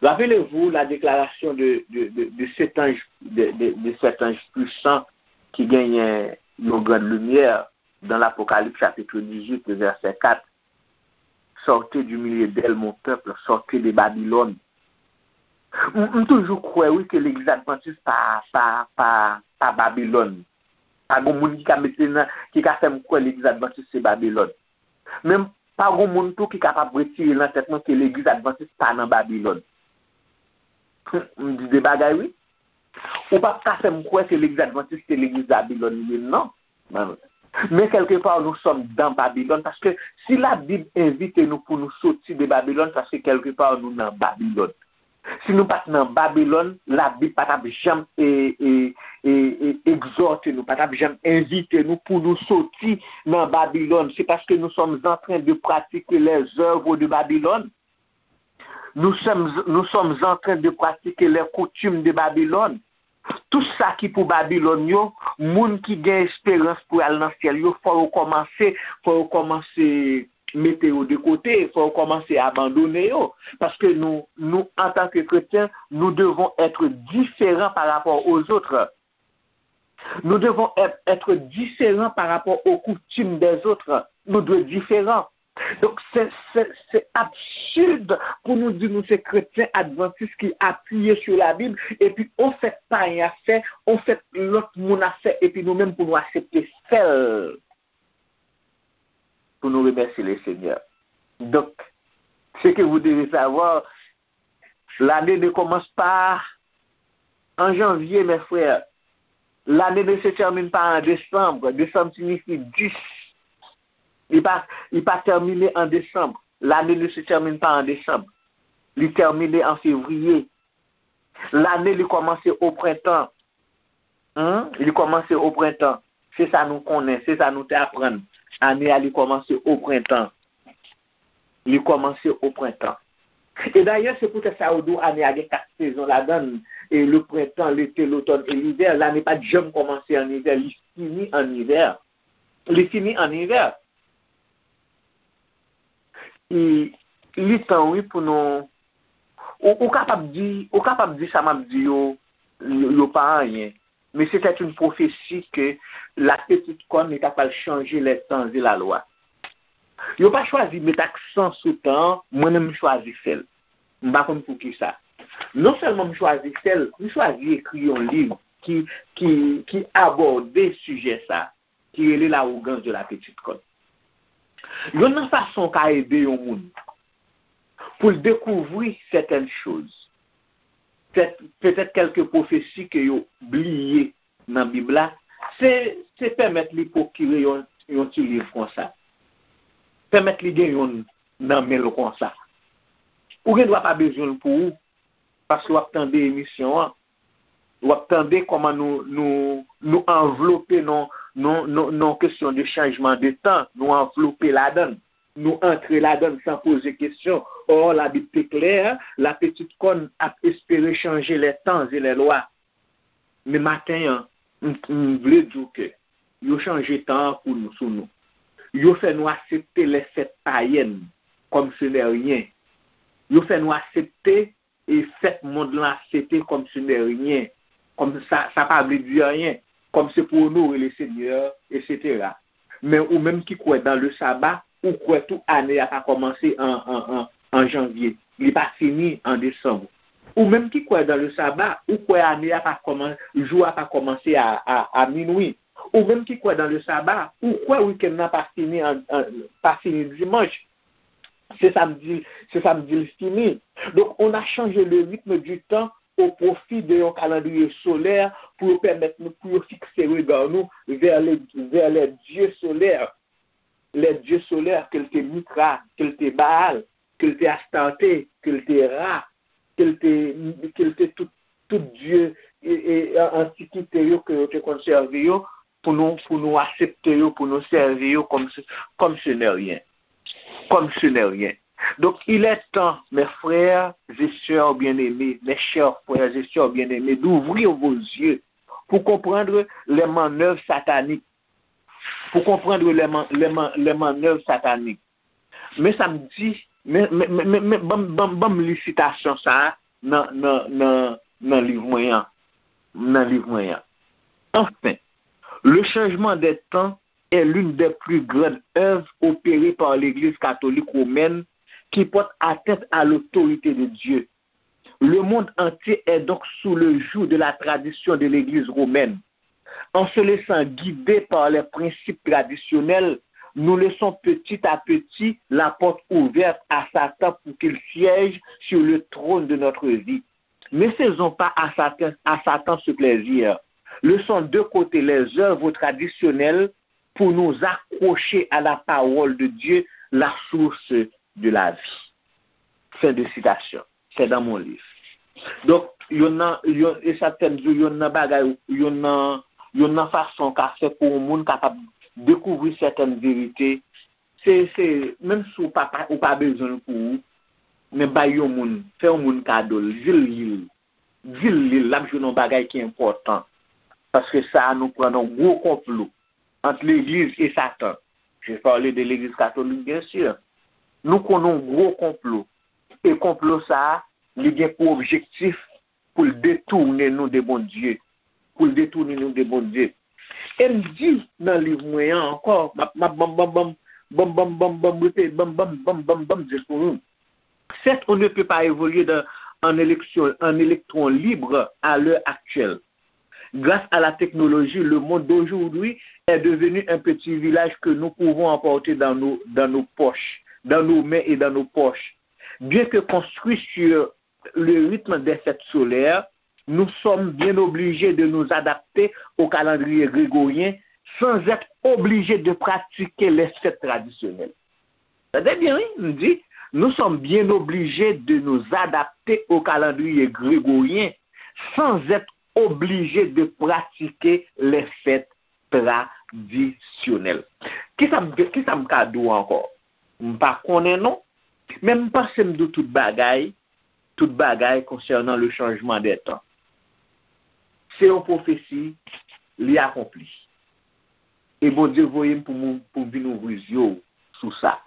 Rappelez-vous la déclaration de, de, de, de cet ange, de, de, de cet ange puissant qui gagne une grande lumière dans l'Apocalypse chapitre dix-huit, verset quatre. Sortez du milieu d'elle, mon peuple, sortez de Babylone. M, m toujou kwè, wi, ke legliz advantis pa, pa, pa, pa Babilòn. Pa gon moun ki ka mete nan, ki ka fè m kwè legliz advantis se Babilòn. Men pa gon moun tou ki kapab retire nan tèt mwen ke legliz advantis pa nan Babilòn. M di de bagay, wi. Ou p ap ka fè m kwè ke legliz advantis se legliz Babilòn li ye, non. Men kèlkepa, nous sommes dans Babylone, paske si Labib envite nou pou nou soti de Babilòn, paske kèlkepa nou nan Babilòn. Si nou pa t nan Babilòn, Labib pa t ap janm e, e, e, e, egzòte nou, pa t ap janm envite nou pou nou soti nan Babilòn. Se paske nous sommes en train de pratiquer les œuvres de Babylone. Nous sommes, nous sommes en train de pratiquer les coutumes de Babylone. Tout sa ki pou Babilòn yo, moun ki gen esperans pou al nan syèl yo, fò yo kòmanse, fò yo kòmanse mete yo de kote, fò yo kòmanse abandone yo. Paske nou, nou, antan ke kretyen, nous devons être différents par rapport aux autres. Nous devons être, être différents par rapport aux coutumes des autres. Nou dwe diferan. Donk, se, se, se absid pou nou di nou se kretyen advantis ki apiye sou Labib, epi on fèt payen ap fè, on fèt lòt moun ap fè, epi nou menm pou nou aksepte fè l, pou nou remèsye le Senyè. Donc, ce que vous devez savoir, l'année ne commence pas en janvier, mes frères. L'année ne se termine pas en décembre. Décembre signifie dix. Li pa, li pa tèmine an desanm. L'année ne se termine pas en décembre. Li tèmine an fevriye. Lane li kòmanse o prentan. Hein? Li kòmanse o prentan. Se sa nou konnen, se sa nou te aprann. Ane a, li kòmanse o prentan. Li kòmanse o prentan. E dayè, se poutèt sa yo di w ane a gen kat sezon ladan l, e le printemps, l'été, l'automne et l'hiver. Lane pa t janm kòmanse an ivè, li fini an ivè. Li fini an ivè. Li, li tan, wi, pou nou. Ou, ou kapab di, ou kapab di sa m ap di yo, yo, yo pa anyen. Men se tèt yon pwofesi ke la petite corne li ta pral chanje les temps et la loi. Yo pa chwazi met aksan sou tan an, mwen menm m chwazi fè l. M pa konn poukisa. Non sèlman m chwazi fè l, m chwazi ekri yon liv ki, ki, ki abòde sijè sa, ki rele L'arrogance de la petite corne. Youn nan fason w ka ede yon moun pou l dekouvri sètèn choz, petèt kèlke pwofesi ke yo bliye nan Bib la, se, se pèmèt li pwokire yon, yon ti liv konsa. Pèmèt li gen youn nan men l konsa. Ou gen dwa pa bezwen l pou ou, paske w ap tande emisyon an, w ap tande kòman nou, nou, nou anvlope nan, nan, nan, nan kesyon de chanjman de tan, nou anvlope ladan l. Nou antre ladan l san poze kesyon. Or, Labib te klè, la petite corne ap espere changer les temps et les lois. Men maten an, m, m vle di w ke yo chanje tan an pou nou, sou nou. Yo fè nou aksepte les fêtes païennes comme ce n'est rien. Yo fè nou aksepte e fèt mond lan ap fete comme ce n'est rien, comme ça, ça pa vle di anyen, comme c'est pour honorer le Seigneur, et cetera. Men ou menm ki kwè dans le sabbat, ou kwè tou ane a pa kòmanse an, an, an, an janvye, li pa fini an desanm. Ou menm ki kwè dans le sabbat, ou kwè ane a pa kòman, jou a pa kòmanse a, a, a minwi. Ou menm ki kwè dans le sabbat, ou kwè wikenn nan pa fini an, an, pa fini dimanch. Se sa m di, se sa m di l fini. Donc, on a changé le rythme du temps au profit de yon calendrier solaire pou yo pèmèt nou, pou yo fikse rega nou vers les, vers les dieux solaires. Les dieux solaires, ke l te Mithra, ke l te Baal, ke l te Astarte, ke l te Ra, ke l te, ke l te tout, tout dye e, e, an- antikite yo ke yo te konn sèvi yo, pou nou, pou nou aksepte yo, pou nou sèvi yo comme ce, comme ce n'est rien. Comme ce n'est rien. Donc, il est temps, mes frères et sœurs bien-aimés, mes chers frères et sœurs bien-aimés, d'ouvrir vos yeux pour comprendre les manœuvres sataniques. Pour comprendre les, man- les, man- les manœuvres sataniques. Men sa m di, men, men, men, men, men ban m- ban m- ban m li sitasyon sa a nan, nan, nan, nan liv mwen an. Nan liv mwen an. Enfin, le changement des temps est l'une des plus grandes œuvres opérées par l'Église catholique romaine qui porte atteinte à l'autorité de Dieu. Le monde entier est donc sous le joug de la tradition de l'Église romaine. En se laissant guider par les principes traditionnels, nous laissons petit à petit la porte ouverte à Satan pour qu'il siège sur le trône de notre vie. Ne faisons pas à Satan, à Satan ce plaisir. Laissons de côté les œuvres traditionnelles pour nous accrocher à la parole de Dieu, la source de la vie. Fin de citation. C'est dans mon livre. Donk, youn nan, youn, e sa k fè m di w, youn nan bagay, youn nan, youn nan fason w ka fè pou yon moun kapab dekouvri sètèn verite, se, se, menm si w pa, pa- ou pa bezwen l pou ou, men bay yon moun, fè yon moun kado l, di l li l. Di l li l, l ap jwenn yon bagay ki enpòtan. Paske sa a nou pran nan gwo konplo ant legliz e Satan. Je parle de legliz katolik, bien sûr. Nou konn yon gwo konplo. E konplo sa a, li gen pou objektif pou l detounen nou de Bondye. Pou l detounen nou de Bondye. E m di nan liv mwen an ankò, m ap, m ap, ban m, ban m, ban m, banm, banm, banm, banm, repete, banm, banm, banm, banm, banm, jis pou nou. Certes, on ne peut pas évoluer dans, en élection, en électron libre à l'heure actuelle. Grâce à la technologie, le monde d'aujourd'hui est devenu un petit village que nous pouvons emporter dans nos, dans nos poches, dans nos mains et dans nos poches. Bien que construit sur le rythme des fêtes solaires, nous sommes bien obligés de nous adapter au calendrier grégorien sans être obligés de pratiquer les fêtes traditionnelles. Tande byen, wi, m di, nous sommes bien obligés de nous adapter au calendrier grégorien sans être obligés de pratiquer les fêtes tradisyonèl. Kisa m, kisa m ka di w ankò? M pa konnen non, men m panse m di w tout bagay, tout bagay konsènan le changement des temps. Se yon pwofesi, li akonpli. E Bondye voye m pou m, pou m vin ouvri zye w sou sa.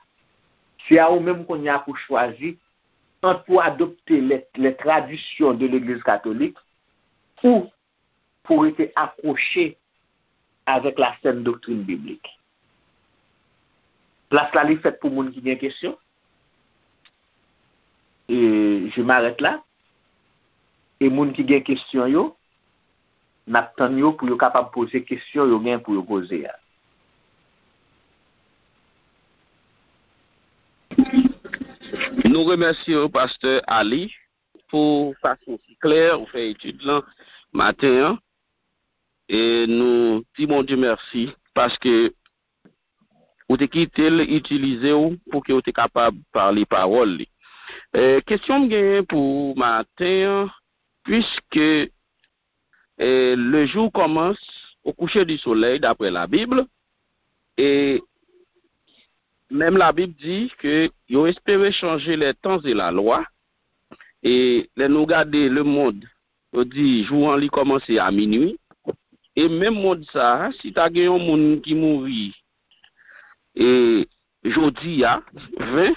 Se a ou menm kounye a pou chwazi ant pou adopte les, les traditions de l'Église catholique ou pou rete akwoche avec la saine doctrine biblique. Plas la li fèt pou moun ki gen kesyon. E je m'arrête là. E moun ki gen kesyon yo, n ap tann yo pou yo kapab poze kesyon yo gen pou yo poze a. Nou remèsye w, Pastè Ali, pou fason si klè ou fè etid lan maten an. E nou di Bondye mèsi paske ou te kite l itilize w pou ke w te kapab pale pawòl li. E, kesyon m genyen pou ou maten an, puiske e, le jour commence au coucher du soleil, d'après la Bible, e menm la Bib di ke yo espere chanje les temps et la loi, e lè nou gade le monde, yo di jou an li kòmanse a minui, e menm mond sa a, si ta gen yon moun ki mouri e jodi a, ven,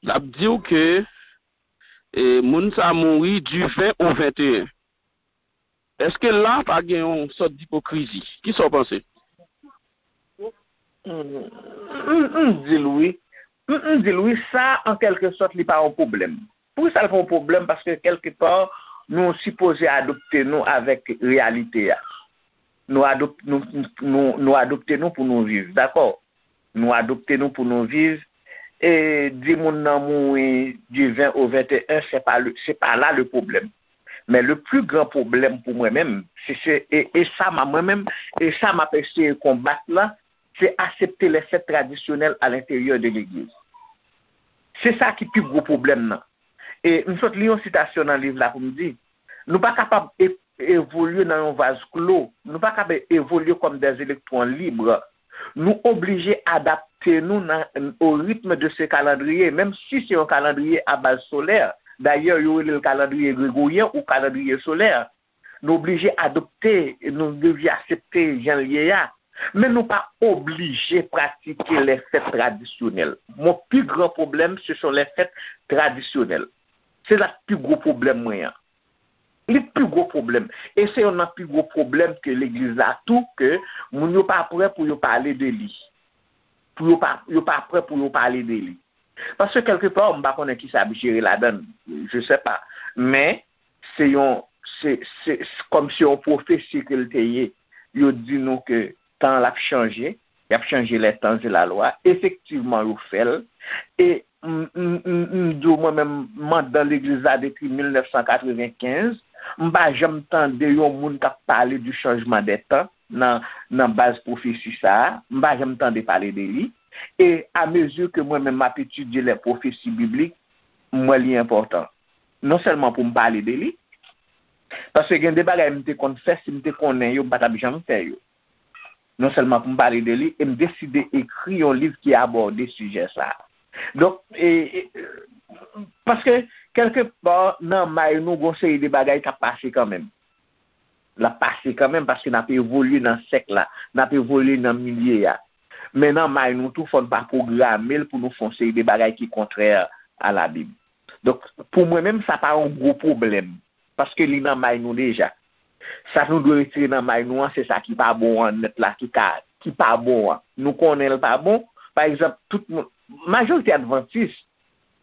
l ap di w ke e moun sa mouri du ven au venteyen. Èske la pa gen yon sòt dipokrizi? Kisa w panse? M, m, m di l wi. M, m di l wi, sa, an kèlke sòt, li pa yon pwoblèm. Poukisa l pa yon pwoblèm? Paske, kèlke pa, nou sipoze adopte nou avèk reyalite a. Nou adop-, nou, nou, nou adopte nou pou nou viv, dakò? Nou adopte nou pou nou viv. E di moun nan mouri du ven au venteyen, se pa le, se pa la le pwoblèm. Men le plus grand problème pou mwen menm, se, se, e, e sa m a, mwen menm, e sa m ap eseye konbat la, se aksepte les fêtes traditionnelles à l'intérieur de l'église. Se sa ki pi gwo pwoblèm nan. E m sot li yon sitasyon nan liv la pou m di, nou pa kapab e-, evolye nan yon vaz klo, nou pa kapab evolye kòm des électrons libres. Nou oblije adapte nou nan, au rythme de ce calendrier, menm si se yon kalandriye a baz solè. Dayè, yo rele l kalandriye gregoryen ou kalandriye solè. Nou oblije adopte, nou oblije aksepte jan l ye a. Men nou pa oblije pratike les fêtes traditionnelles. Mon plus grand problème, ce sont les fêtes traditionnelles. Se la pi gwo pwoblèm mwen an. Li pi gwo pwoblèm. E se youn nan pi gwo pwoblèm ke legliz la tou, ke moun yo pa prè pou yo pale de li. Pou yo pa, yo pa prè pou yo pale de li. Paske kèlke pa, m pa konnen kisa ap jere ladan l, je sais pas. Men, se yon, se, se, se kòm se yon pwofesi ke l te ye. Yo di nou ke tan l ap chanje, y ap chanje les temps et la loi. Efektivman, yo fè l. E m, m, m, m di w, mwen menm, m anndan legliz la depi mil nèf san katrevenkenz. M pa janm tande yon moun k ap pale du changement des temps nan, nan baz pwofesi sa a. M pa janm tande pale de li. E amezi ke mwen menm m ap etidye les prophéties bibliques, m wè li enpòtan. Non sèlman pou m pale de li, paske gen de bagay m te konn fè, si m te konnen yo, m pa t ap janm fè yo. Non sèlman pou m pale de li, e m deside ekri yon liv ki abòde sijè sa a. Donk, e, e, paske, kèlke pa, nan may nou, gon seri de bagay k ap pase kanmenm. L ap pase kanmenm, paske n ap evolye nan sèk la, n ap evolye nan milye a. Men nan may nou tou, fò n pa pwograme l pou nou fè yon seri de bagay ki kontrè a Labib. Donk, pou mwen menm, sa pa yon gwo pwoblèm, paske li nan may nou deja. Sa nou dwe retire nan may nou an, se sa ki pa bon an nèt la, ki ka, ki pa bon an. Nou konnen l pa bon, pa egzanp, tout moun, majorite advantis,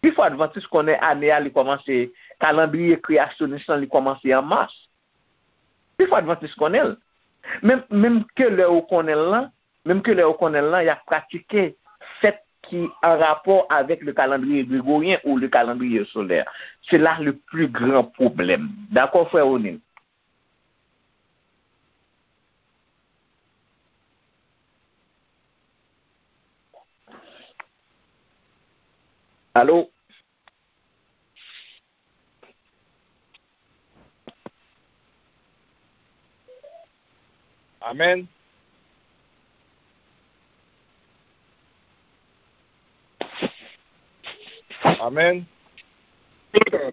pifò advantis konnen ane a li kòmanse, kalandriye kreyasyonis lan li kòmanse an mas. Pifò advantis konnen l. Menm, menm ke lè ou konnen l lan, menm ke lè ou konnen l lan, y ap pratike fèt ki an rapò avèk le calendrier grégorien ou le calendrier solaire. Se la le plus grand problème. Dakò, frè Ronil? Alo? Amèn. Amèn. Amèn.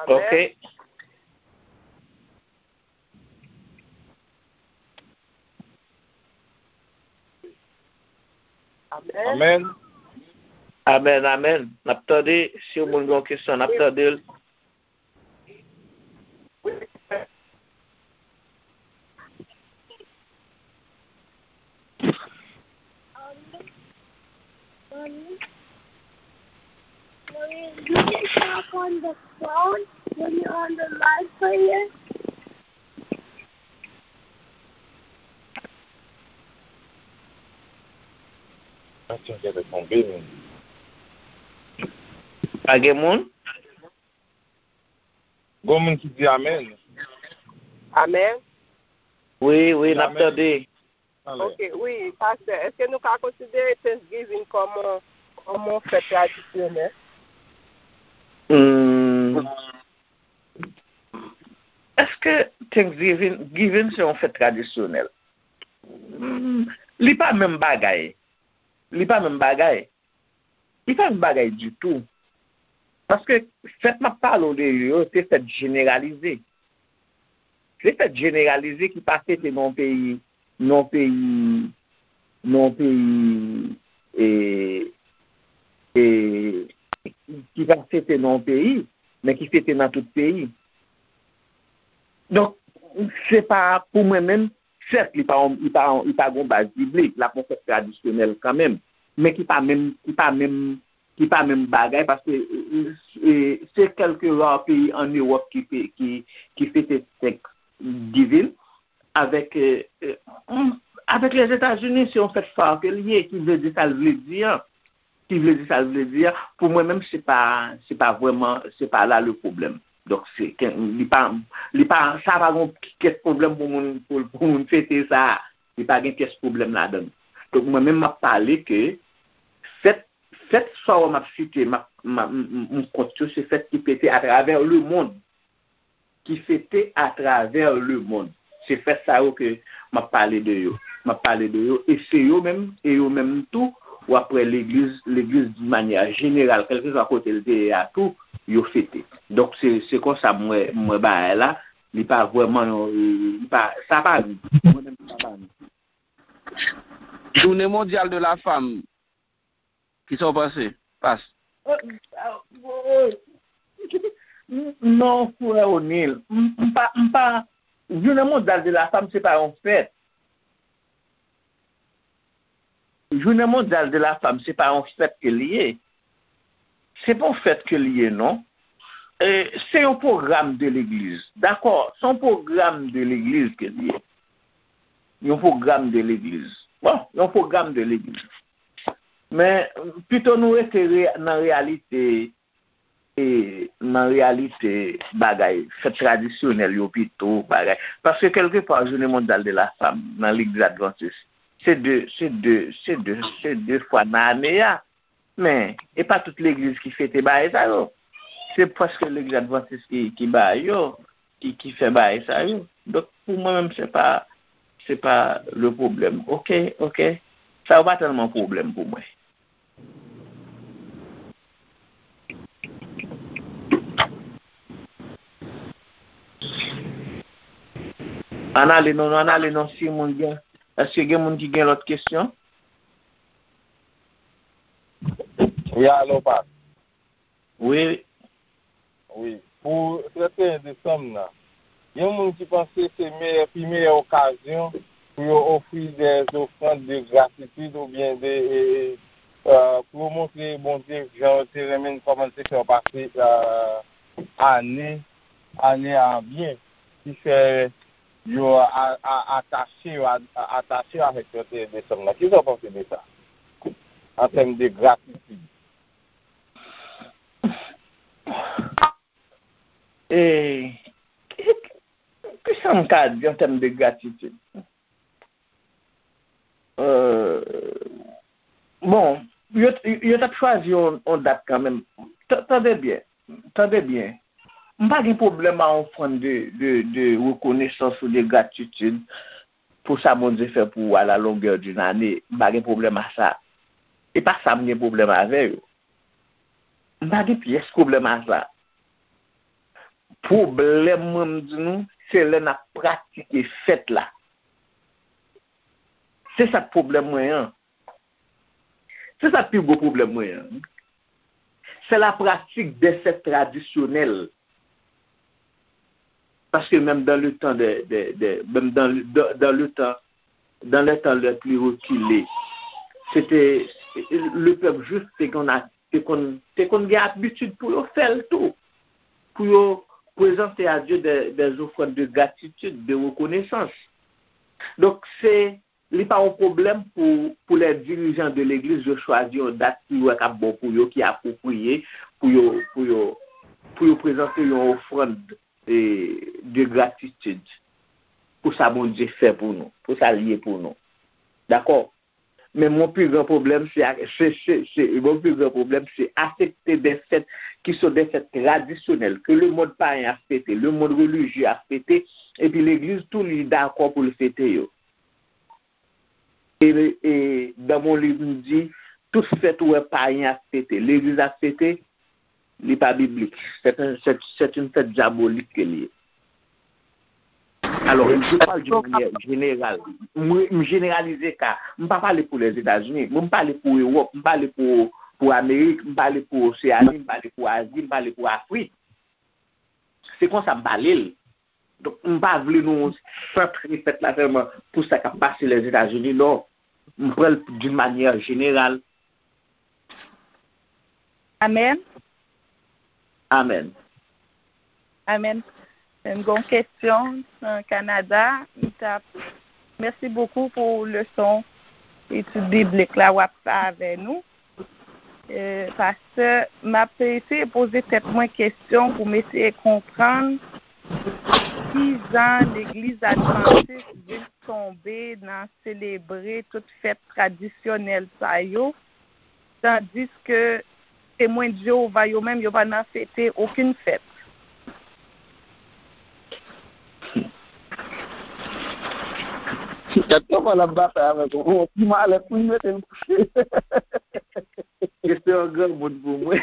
Ok. Amèn. Amèn. Amèn, amèn. N ap tande, si yon moun gen yon kesyon, n ap tande l. Mommy, mommy, you can talk on the phone when you're on the live player. Atyon, genlè tonbe, men. Pa gen moun? Gon moun ki di amèn. Amèn. Wi, wi, n ap tande. Ok, wi, pastè, èske nou ka konsidere Thanksgiving kòm yon, kòm yon fèt tradisyonèl? Hmm. Èske Thanksgiving, Giving se yon fèt tradisyonèl? Hmm, li pa menm bagay. Li pa menm bagay. Li pa yon bagay ditou. Paske fèt m ap pale w de yo, se fèt jeneralize. Se fèt jeneralize ki pa fete nan yon peyi, nan yon peyi, nan yon peyi, e, e, ki pa fete nan yon peyi, men ki fete nan tout peyi. Donk, se pa, pou mwen menm, sèt, li pa, li pa, li pa gon baz biblik, l ap yon fèt tradisyonèl kanmenm, men ki pa menm, ki pa menm, ki pa menm bagay, paske, e, e, se kèlke ra peyi ann Ewòp ki, ki, ki fete Thanksgiving, avèk, e, e, avèk Lèzetazini, se yon fèt fa ke l ye, ki vle di sa l vle di an. Ki vle di sa l vle di a. Pou mwen menm, se pa, se pa vrèman, se pa la le pwoblèm. Donk, se, ke, li pa, li pa, sa pa gon pyès pwoblèm pou moun, pou, pou moun fete sa. Li pa gen pyès pwoblèm ladan l. Donk, mwen menm, m ap pale ke fèt, fèt sa w m ap site, m ap, m ap, m, m, m kont yo, se fèt ki fete atravè lemonn. Ki fete atravè lemonn. Se fèt sa yo ke m ap pale de yo. M ap pale de yo, e se yo menm, e yo menm tou, w ap wè legliz, legliz di manyè jeneral, kèlkeswa kote l te ye a tou, yo fete. Donk, se, se konsa m wè, m wè bagay la, li pa vrèman yon, li pa, sa pa nou. Mwen menm, sa pa nou. Jounen mondyal de la fanm, Kisa w panse, Pas? Non, frè O'Neil, m, m pa, m pa, Jounen Mondyal de la Fanm, se pa yon fèt. Jounen Mondyal de la Fanm, se pa yon fèt ke l ye. Se pa yon fèt ke l ye, non. E, se yon pwogram de legliz. Dakò, se yon pwogram de legliz ke l ye. Yon pwogram de legliz. Bon, yon pwogram de legliz. Men, pito nou rete re-, nan reyalite, e, nan reyalite bagay, fèt tradisyonèl yo pito, bagay. Paske kèlkepa, Jounen Mondyal de la Fanm, nan Legliz Advantis, se de, se de, se de, se de fwa nan ane a. Men, e pa tout legliz ki fete bagay sa yo. Se prèske Legliz Advantis ki, ki bay yo, ki, ki fè bagay sa yo. Donk, pou mwen menm, se pa, se pa le pwoblèm. Oke, oke. Sa yo pa tèlman pwoblèm pou mwen. Ann ale non, ann ale non, si moun gen, èske gen moun ki gen lòt kesyon? Wi, alo, Pas. Wi. Wi. Pou trannteyen desanm nan, gen moun ki panse se meyè, pi meyè okazyon pou yo ofri de ofrann de gratitid oubyen de, e, e, pou yo montre Bondye jan yo te renmen n, kòman n te fè yo pase, e, ane, ane a byen, ki fè yo a, a, atache yo, a, a, atache yo avèk trannteyen desanm nan. Kisa w panse de sa? An tèm de gratitid. E, ki, ki, kisa m ka di an tèm de gratitid? Euh, bon, yo, yo t ap chwazi yon, yon dat kanmenm. Tande byen, tande byen. M pa gen pwoblèm a ofrann de, de, de rekonesans ou de gratitid pou sa Bondye fè pou ou à la longueur d'une année. M pa gen pwoblèm a sa. E pa sa m gen pwoblèm avè yo. M pa gen pyès pwoblèm a sa. Pwoblèm mwen, m di nou, se lè n ap pratike fèt la. Se sa k pwoblèm mwen an. Se sa k pi gwo pwoblèm mwen an. C'est la pratique des fêtes traditionnelles. Parce que même dans le temps de, de, de même dans, dans, dans le temps, dans les temps les plus reculés, c'était le peuple juif te konn te konn te konn gen abitid pou yo fè l tou, pou yo prezante a Dye des, des offrandes de gratitude, de reconnaissance. Donk se li pa yon pwoblèm pou, pou lè dirijan de legliz yo chwazi yon dat ki yo wè k ap bon pou yo, ki apwopriye pou yo, pou yo, pou yo prezante yon ofrann de, de gratitid pou sa Bondye fè pou nou, pou sa l ye pou nou. Dakò? Men mon pi gran pwoblèm se, se, se, se mon pi gran pwoblèm se aksepte de fèt ki se de fèt tradisyonèl ke le mond payen ap fete, le mond relijye ap fete, epi legliz tou li dakò pou l fete yo. E, e dans mon livre m di tout fèt ou wè payen ap fete, legliz ap fete, li pa biblik. C'est un, c'est, c'est une fête diabolique ke li ye. Alors, je parle d'une manière générale. M, m jeneralize ka. M pa pale pou Lèzetazini. Mwen, m pale pou Ewòp. M pale pou, pou Amerik. M pale pou Oseani. M pale pou Azi. M pale pou Afrik. Se konsa m pale l. Donk, m pa vle nou santre fèt la sèlman pou sa k ap pase Lèzetazini, non. M pran l d'une manière générale. Amèn. Amèn. Amèn. M gen yon kesyon nan Kanada. M t ap, mèsi bokou pou leson etid biblik la w ap fè avè nou. E, pastè, m ap eseye poze tèt mwen kesyon pou m eseye konprann ki jan legliz advantis vin tonbe nan selebre tout fèt tradisyonèl sa yo, tandiske Temwen Jewova yo menm, yo pa nan fete okenn fèt. Gad kòman l ap batay avèk ou. Bon, ti malèt pou l mete l kouche. Kesyon an granmoun pou mwen.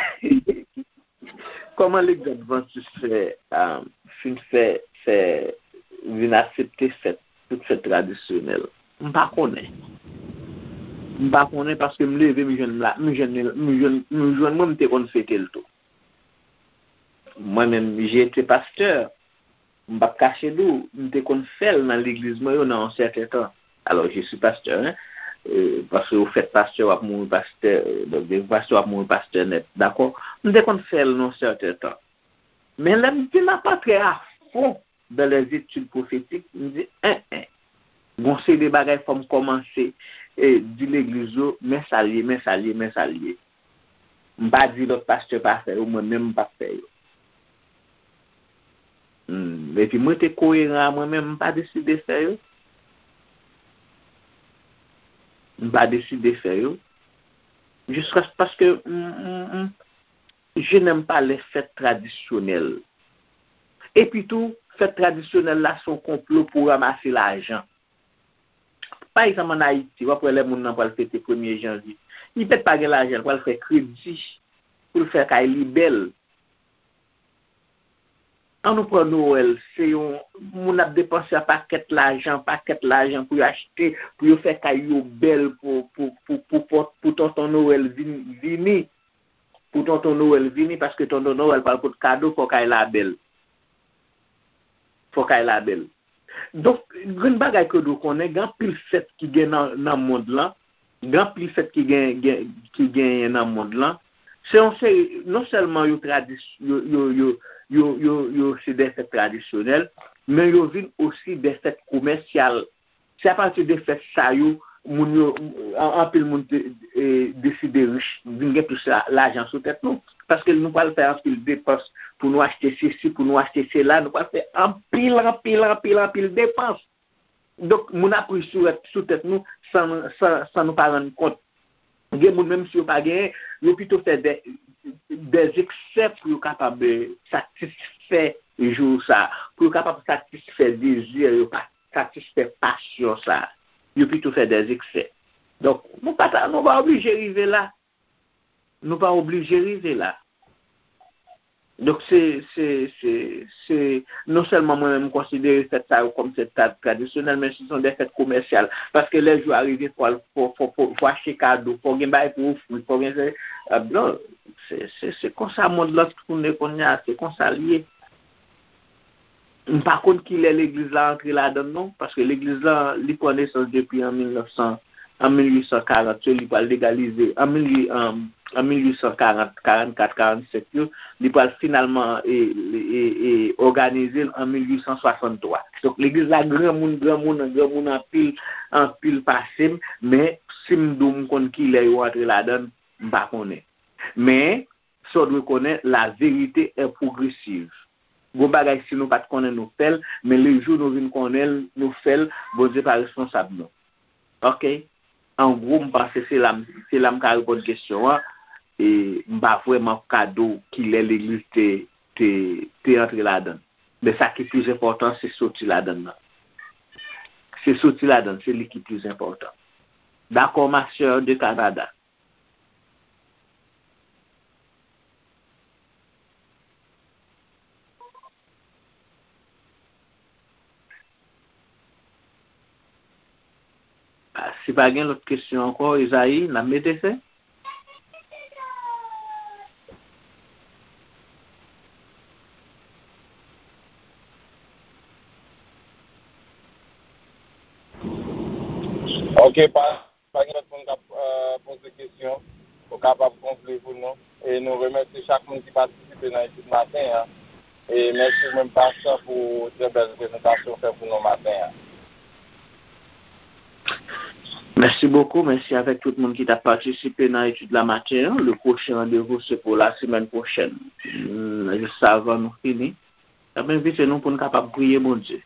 Kòman legliz advantis fè, ah, fin fè, fè, vin aksepte fèt, tout fèt tradisyonèl? M pa konnen. M pa konnen paske m leve, m jwenn la, m jwenn, m jwenn, m jwenn mwen, m te konn fete l tou. Mwen menm, j'ai été pasteur. M p ap kache di w, m te konn fè l nan legliz mwen yo nan yon sèten tan. Alors, je suis pasteur, hein. Euh, paske ou fèt pastè, w ap mouri pastè, euh, donk, depi pastè, w ap mouri pastè nèt, dakò? M te konn fè l nan yon sèten tan. Men lè m vin ap antre a fon dans les études prophétiques, m di, en, en. Gon seri de bagay fò m kòmanse, e, di legliz yo, men sa l ye, men sa l ye, men sa l ye. M pa di lòt pastè pa fè yo, mwen menm m p ap fè yo. Hmm, epi mwen te koyeran a mwen menm, m pa deside fè yo. M pa deside fè yo. Jiskaske m, m, m, je n'aime pas les fêtes traditionnelles. Epi tou, fèt tradisyonèl la se yon konplo pou ranmase lajan. Pa egzanp, ann Ayiti, w ap wè lè moun nan pral fete premye janvye, li pèt pa gen lajan, l pral fè kredi pou l fè kay li bèl. Ann nou pran Nwèl, se yon moun ap depanse yon pakèt lajan, pakèt lajan pou yo achte, pou yo fè kay yo bèl pou, pou, pou, pou, pou, pou tonton Nwèl vin, vini. Pou tonton Nwèl vini, paske tonton Nwèl pral pot kado, fò kay la bèl. Fò kay la bèl. Donk, grenn bagay ke w dwe konnen, gen anpil fèt ki gen nan, nan mond lan, gen anpil fèt ki gen, gen, ki genyen nan mond lan. Se yon seri, non sèlman yo tradis-, yo, yo, yo, yo, yo, yo se de fèt tradisyonèl, men yo vin osi de fèt komèsyal. Se apati de fèt sa yo, moun yo, an-, anpil moun te, e, deside rich, vin gen plis la-, lajan sou tèt nou. Paske nou pral fè anpil depans pou nou achte sesi, pou nou achte sela, nou pral fè anpil, anpil, anpil, anpil depans. Donk, moun ap rich sou, sou tèt nou san, san, san nou pa rann kont. Gen moun, menm si yo pa genyen, yo pito fè de, de eksè pou yo kapab, eh, satisfè jou sa, pou yo kapab satisfè dezi yo, pa satisfè pasyon sa. Yo pito fè de eksè. Donk, nou pa ta, nou pa oblije rive la. Nou pa oblije rive la. Donk, se, se, se, se, non sèlman mwen menm, m konsidere fèt sa yo kòm fèt tra-, tradisyonèl, men se son de fèt komèsyal. Paske lè jou a rive, fò, fò, fò, fò, fò achte kado, fò gen bagay pou ofri, fò gen se, ah, non, se, se, se konsa mond lan tounen kounye a, se konsa l ye. M pa konn kilè legliz la antre ladan l non, paske legliz la, li pran nesans depi an mil nèf san, an mil uit san karant yo, li pral legalize, an mil uit, an, an mil uit san karant, karannkat, karannsenk yo, li pral finalman, e, e, e, òganize l an mil uit san swasanntwa. Donk, legliz la granmoun, granmoun, granmoun anpil, anpil pase m, men si m di w m konn kilè yo antre ladan l, m pa konnen. Men, sa w dwe konnen, la vérité est progressive. Gon bagay, si nou pa t konnen, nou fè l, men le jou nou vin konnen l, nou fè l, Bondye pa responsab nou. Oke? An gwo, m panse se la m, se la m ka reponn kesyon an, e m pa vrèman ka di w kilè legliz te, te, te antre ladan l. Men sa ki plis enpòtan, se soti ladan l nan. Se soti ladan l, se li ki plis enpòtan. Dakò, ma sè de Kanada. Ah, si pa gen lòt kesyon ankò, Ezayi, n ap mete fen. Ok, pa. Pa gen lòt moun k ap, eh, poze kesyon, ou kapab konkli pou nou. E nou remèsye chak moun ki patisipe nan etid maten an. E mèsi ou menm, pastè, pou trè bèl prezantasyon ou fè pou nou maten an. Mèsi bokou, mèsi avèk tout moun ki t ap patisipe nan etid la maten an. Le pwochen randevou se pou la semèn pwochèn. Hmm, jis avan nou fini, m ap envite nou pou n kapab priye Bondye.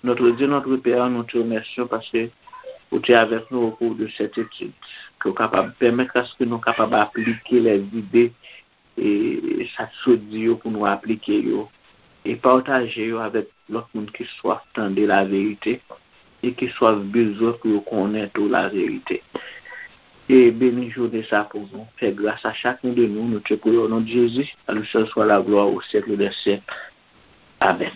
Notre Dieu, notre Père, nous te remercions parce que ou te avèk nou au cours de cette étude, ke w kapab pèmèt aske nou kapab aplike lèzide e sa k sot di yo pou nou aplike yo e pataje yo avèk lòt moun ki swaf tande laverite e ki swaf bezwen pou yo konnen tou laverite. E beni jounen sa pou nou. Fè gras a chak youn de nou, nou te priye au nom de Jésus, à lui seul soit la gloire au siècle des siècles. Amèn.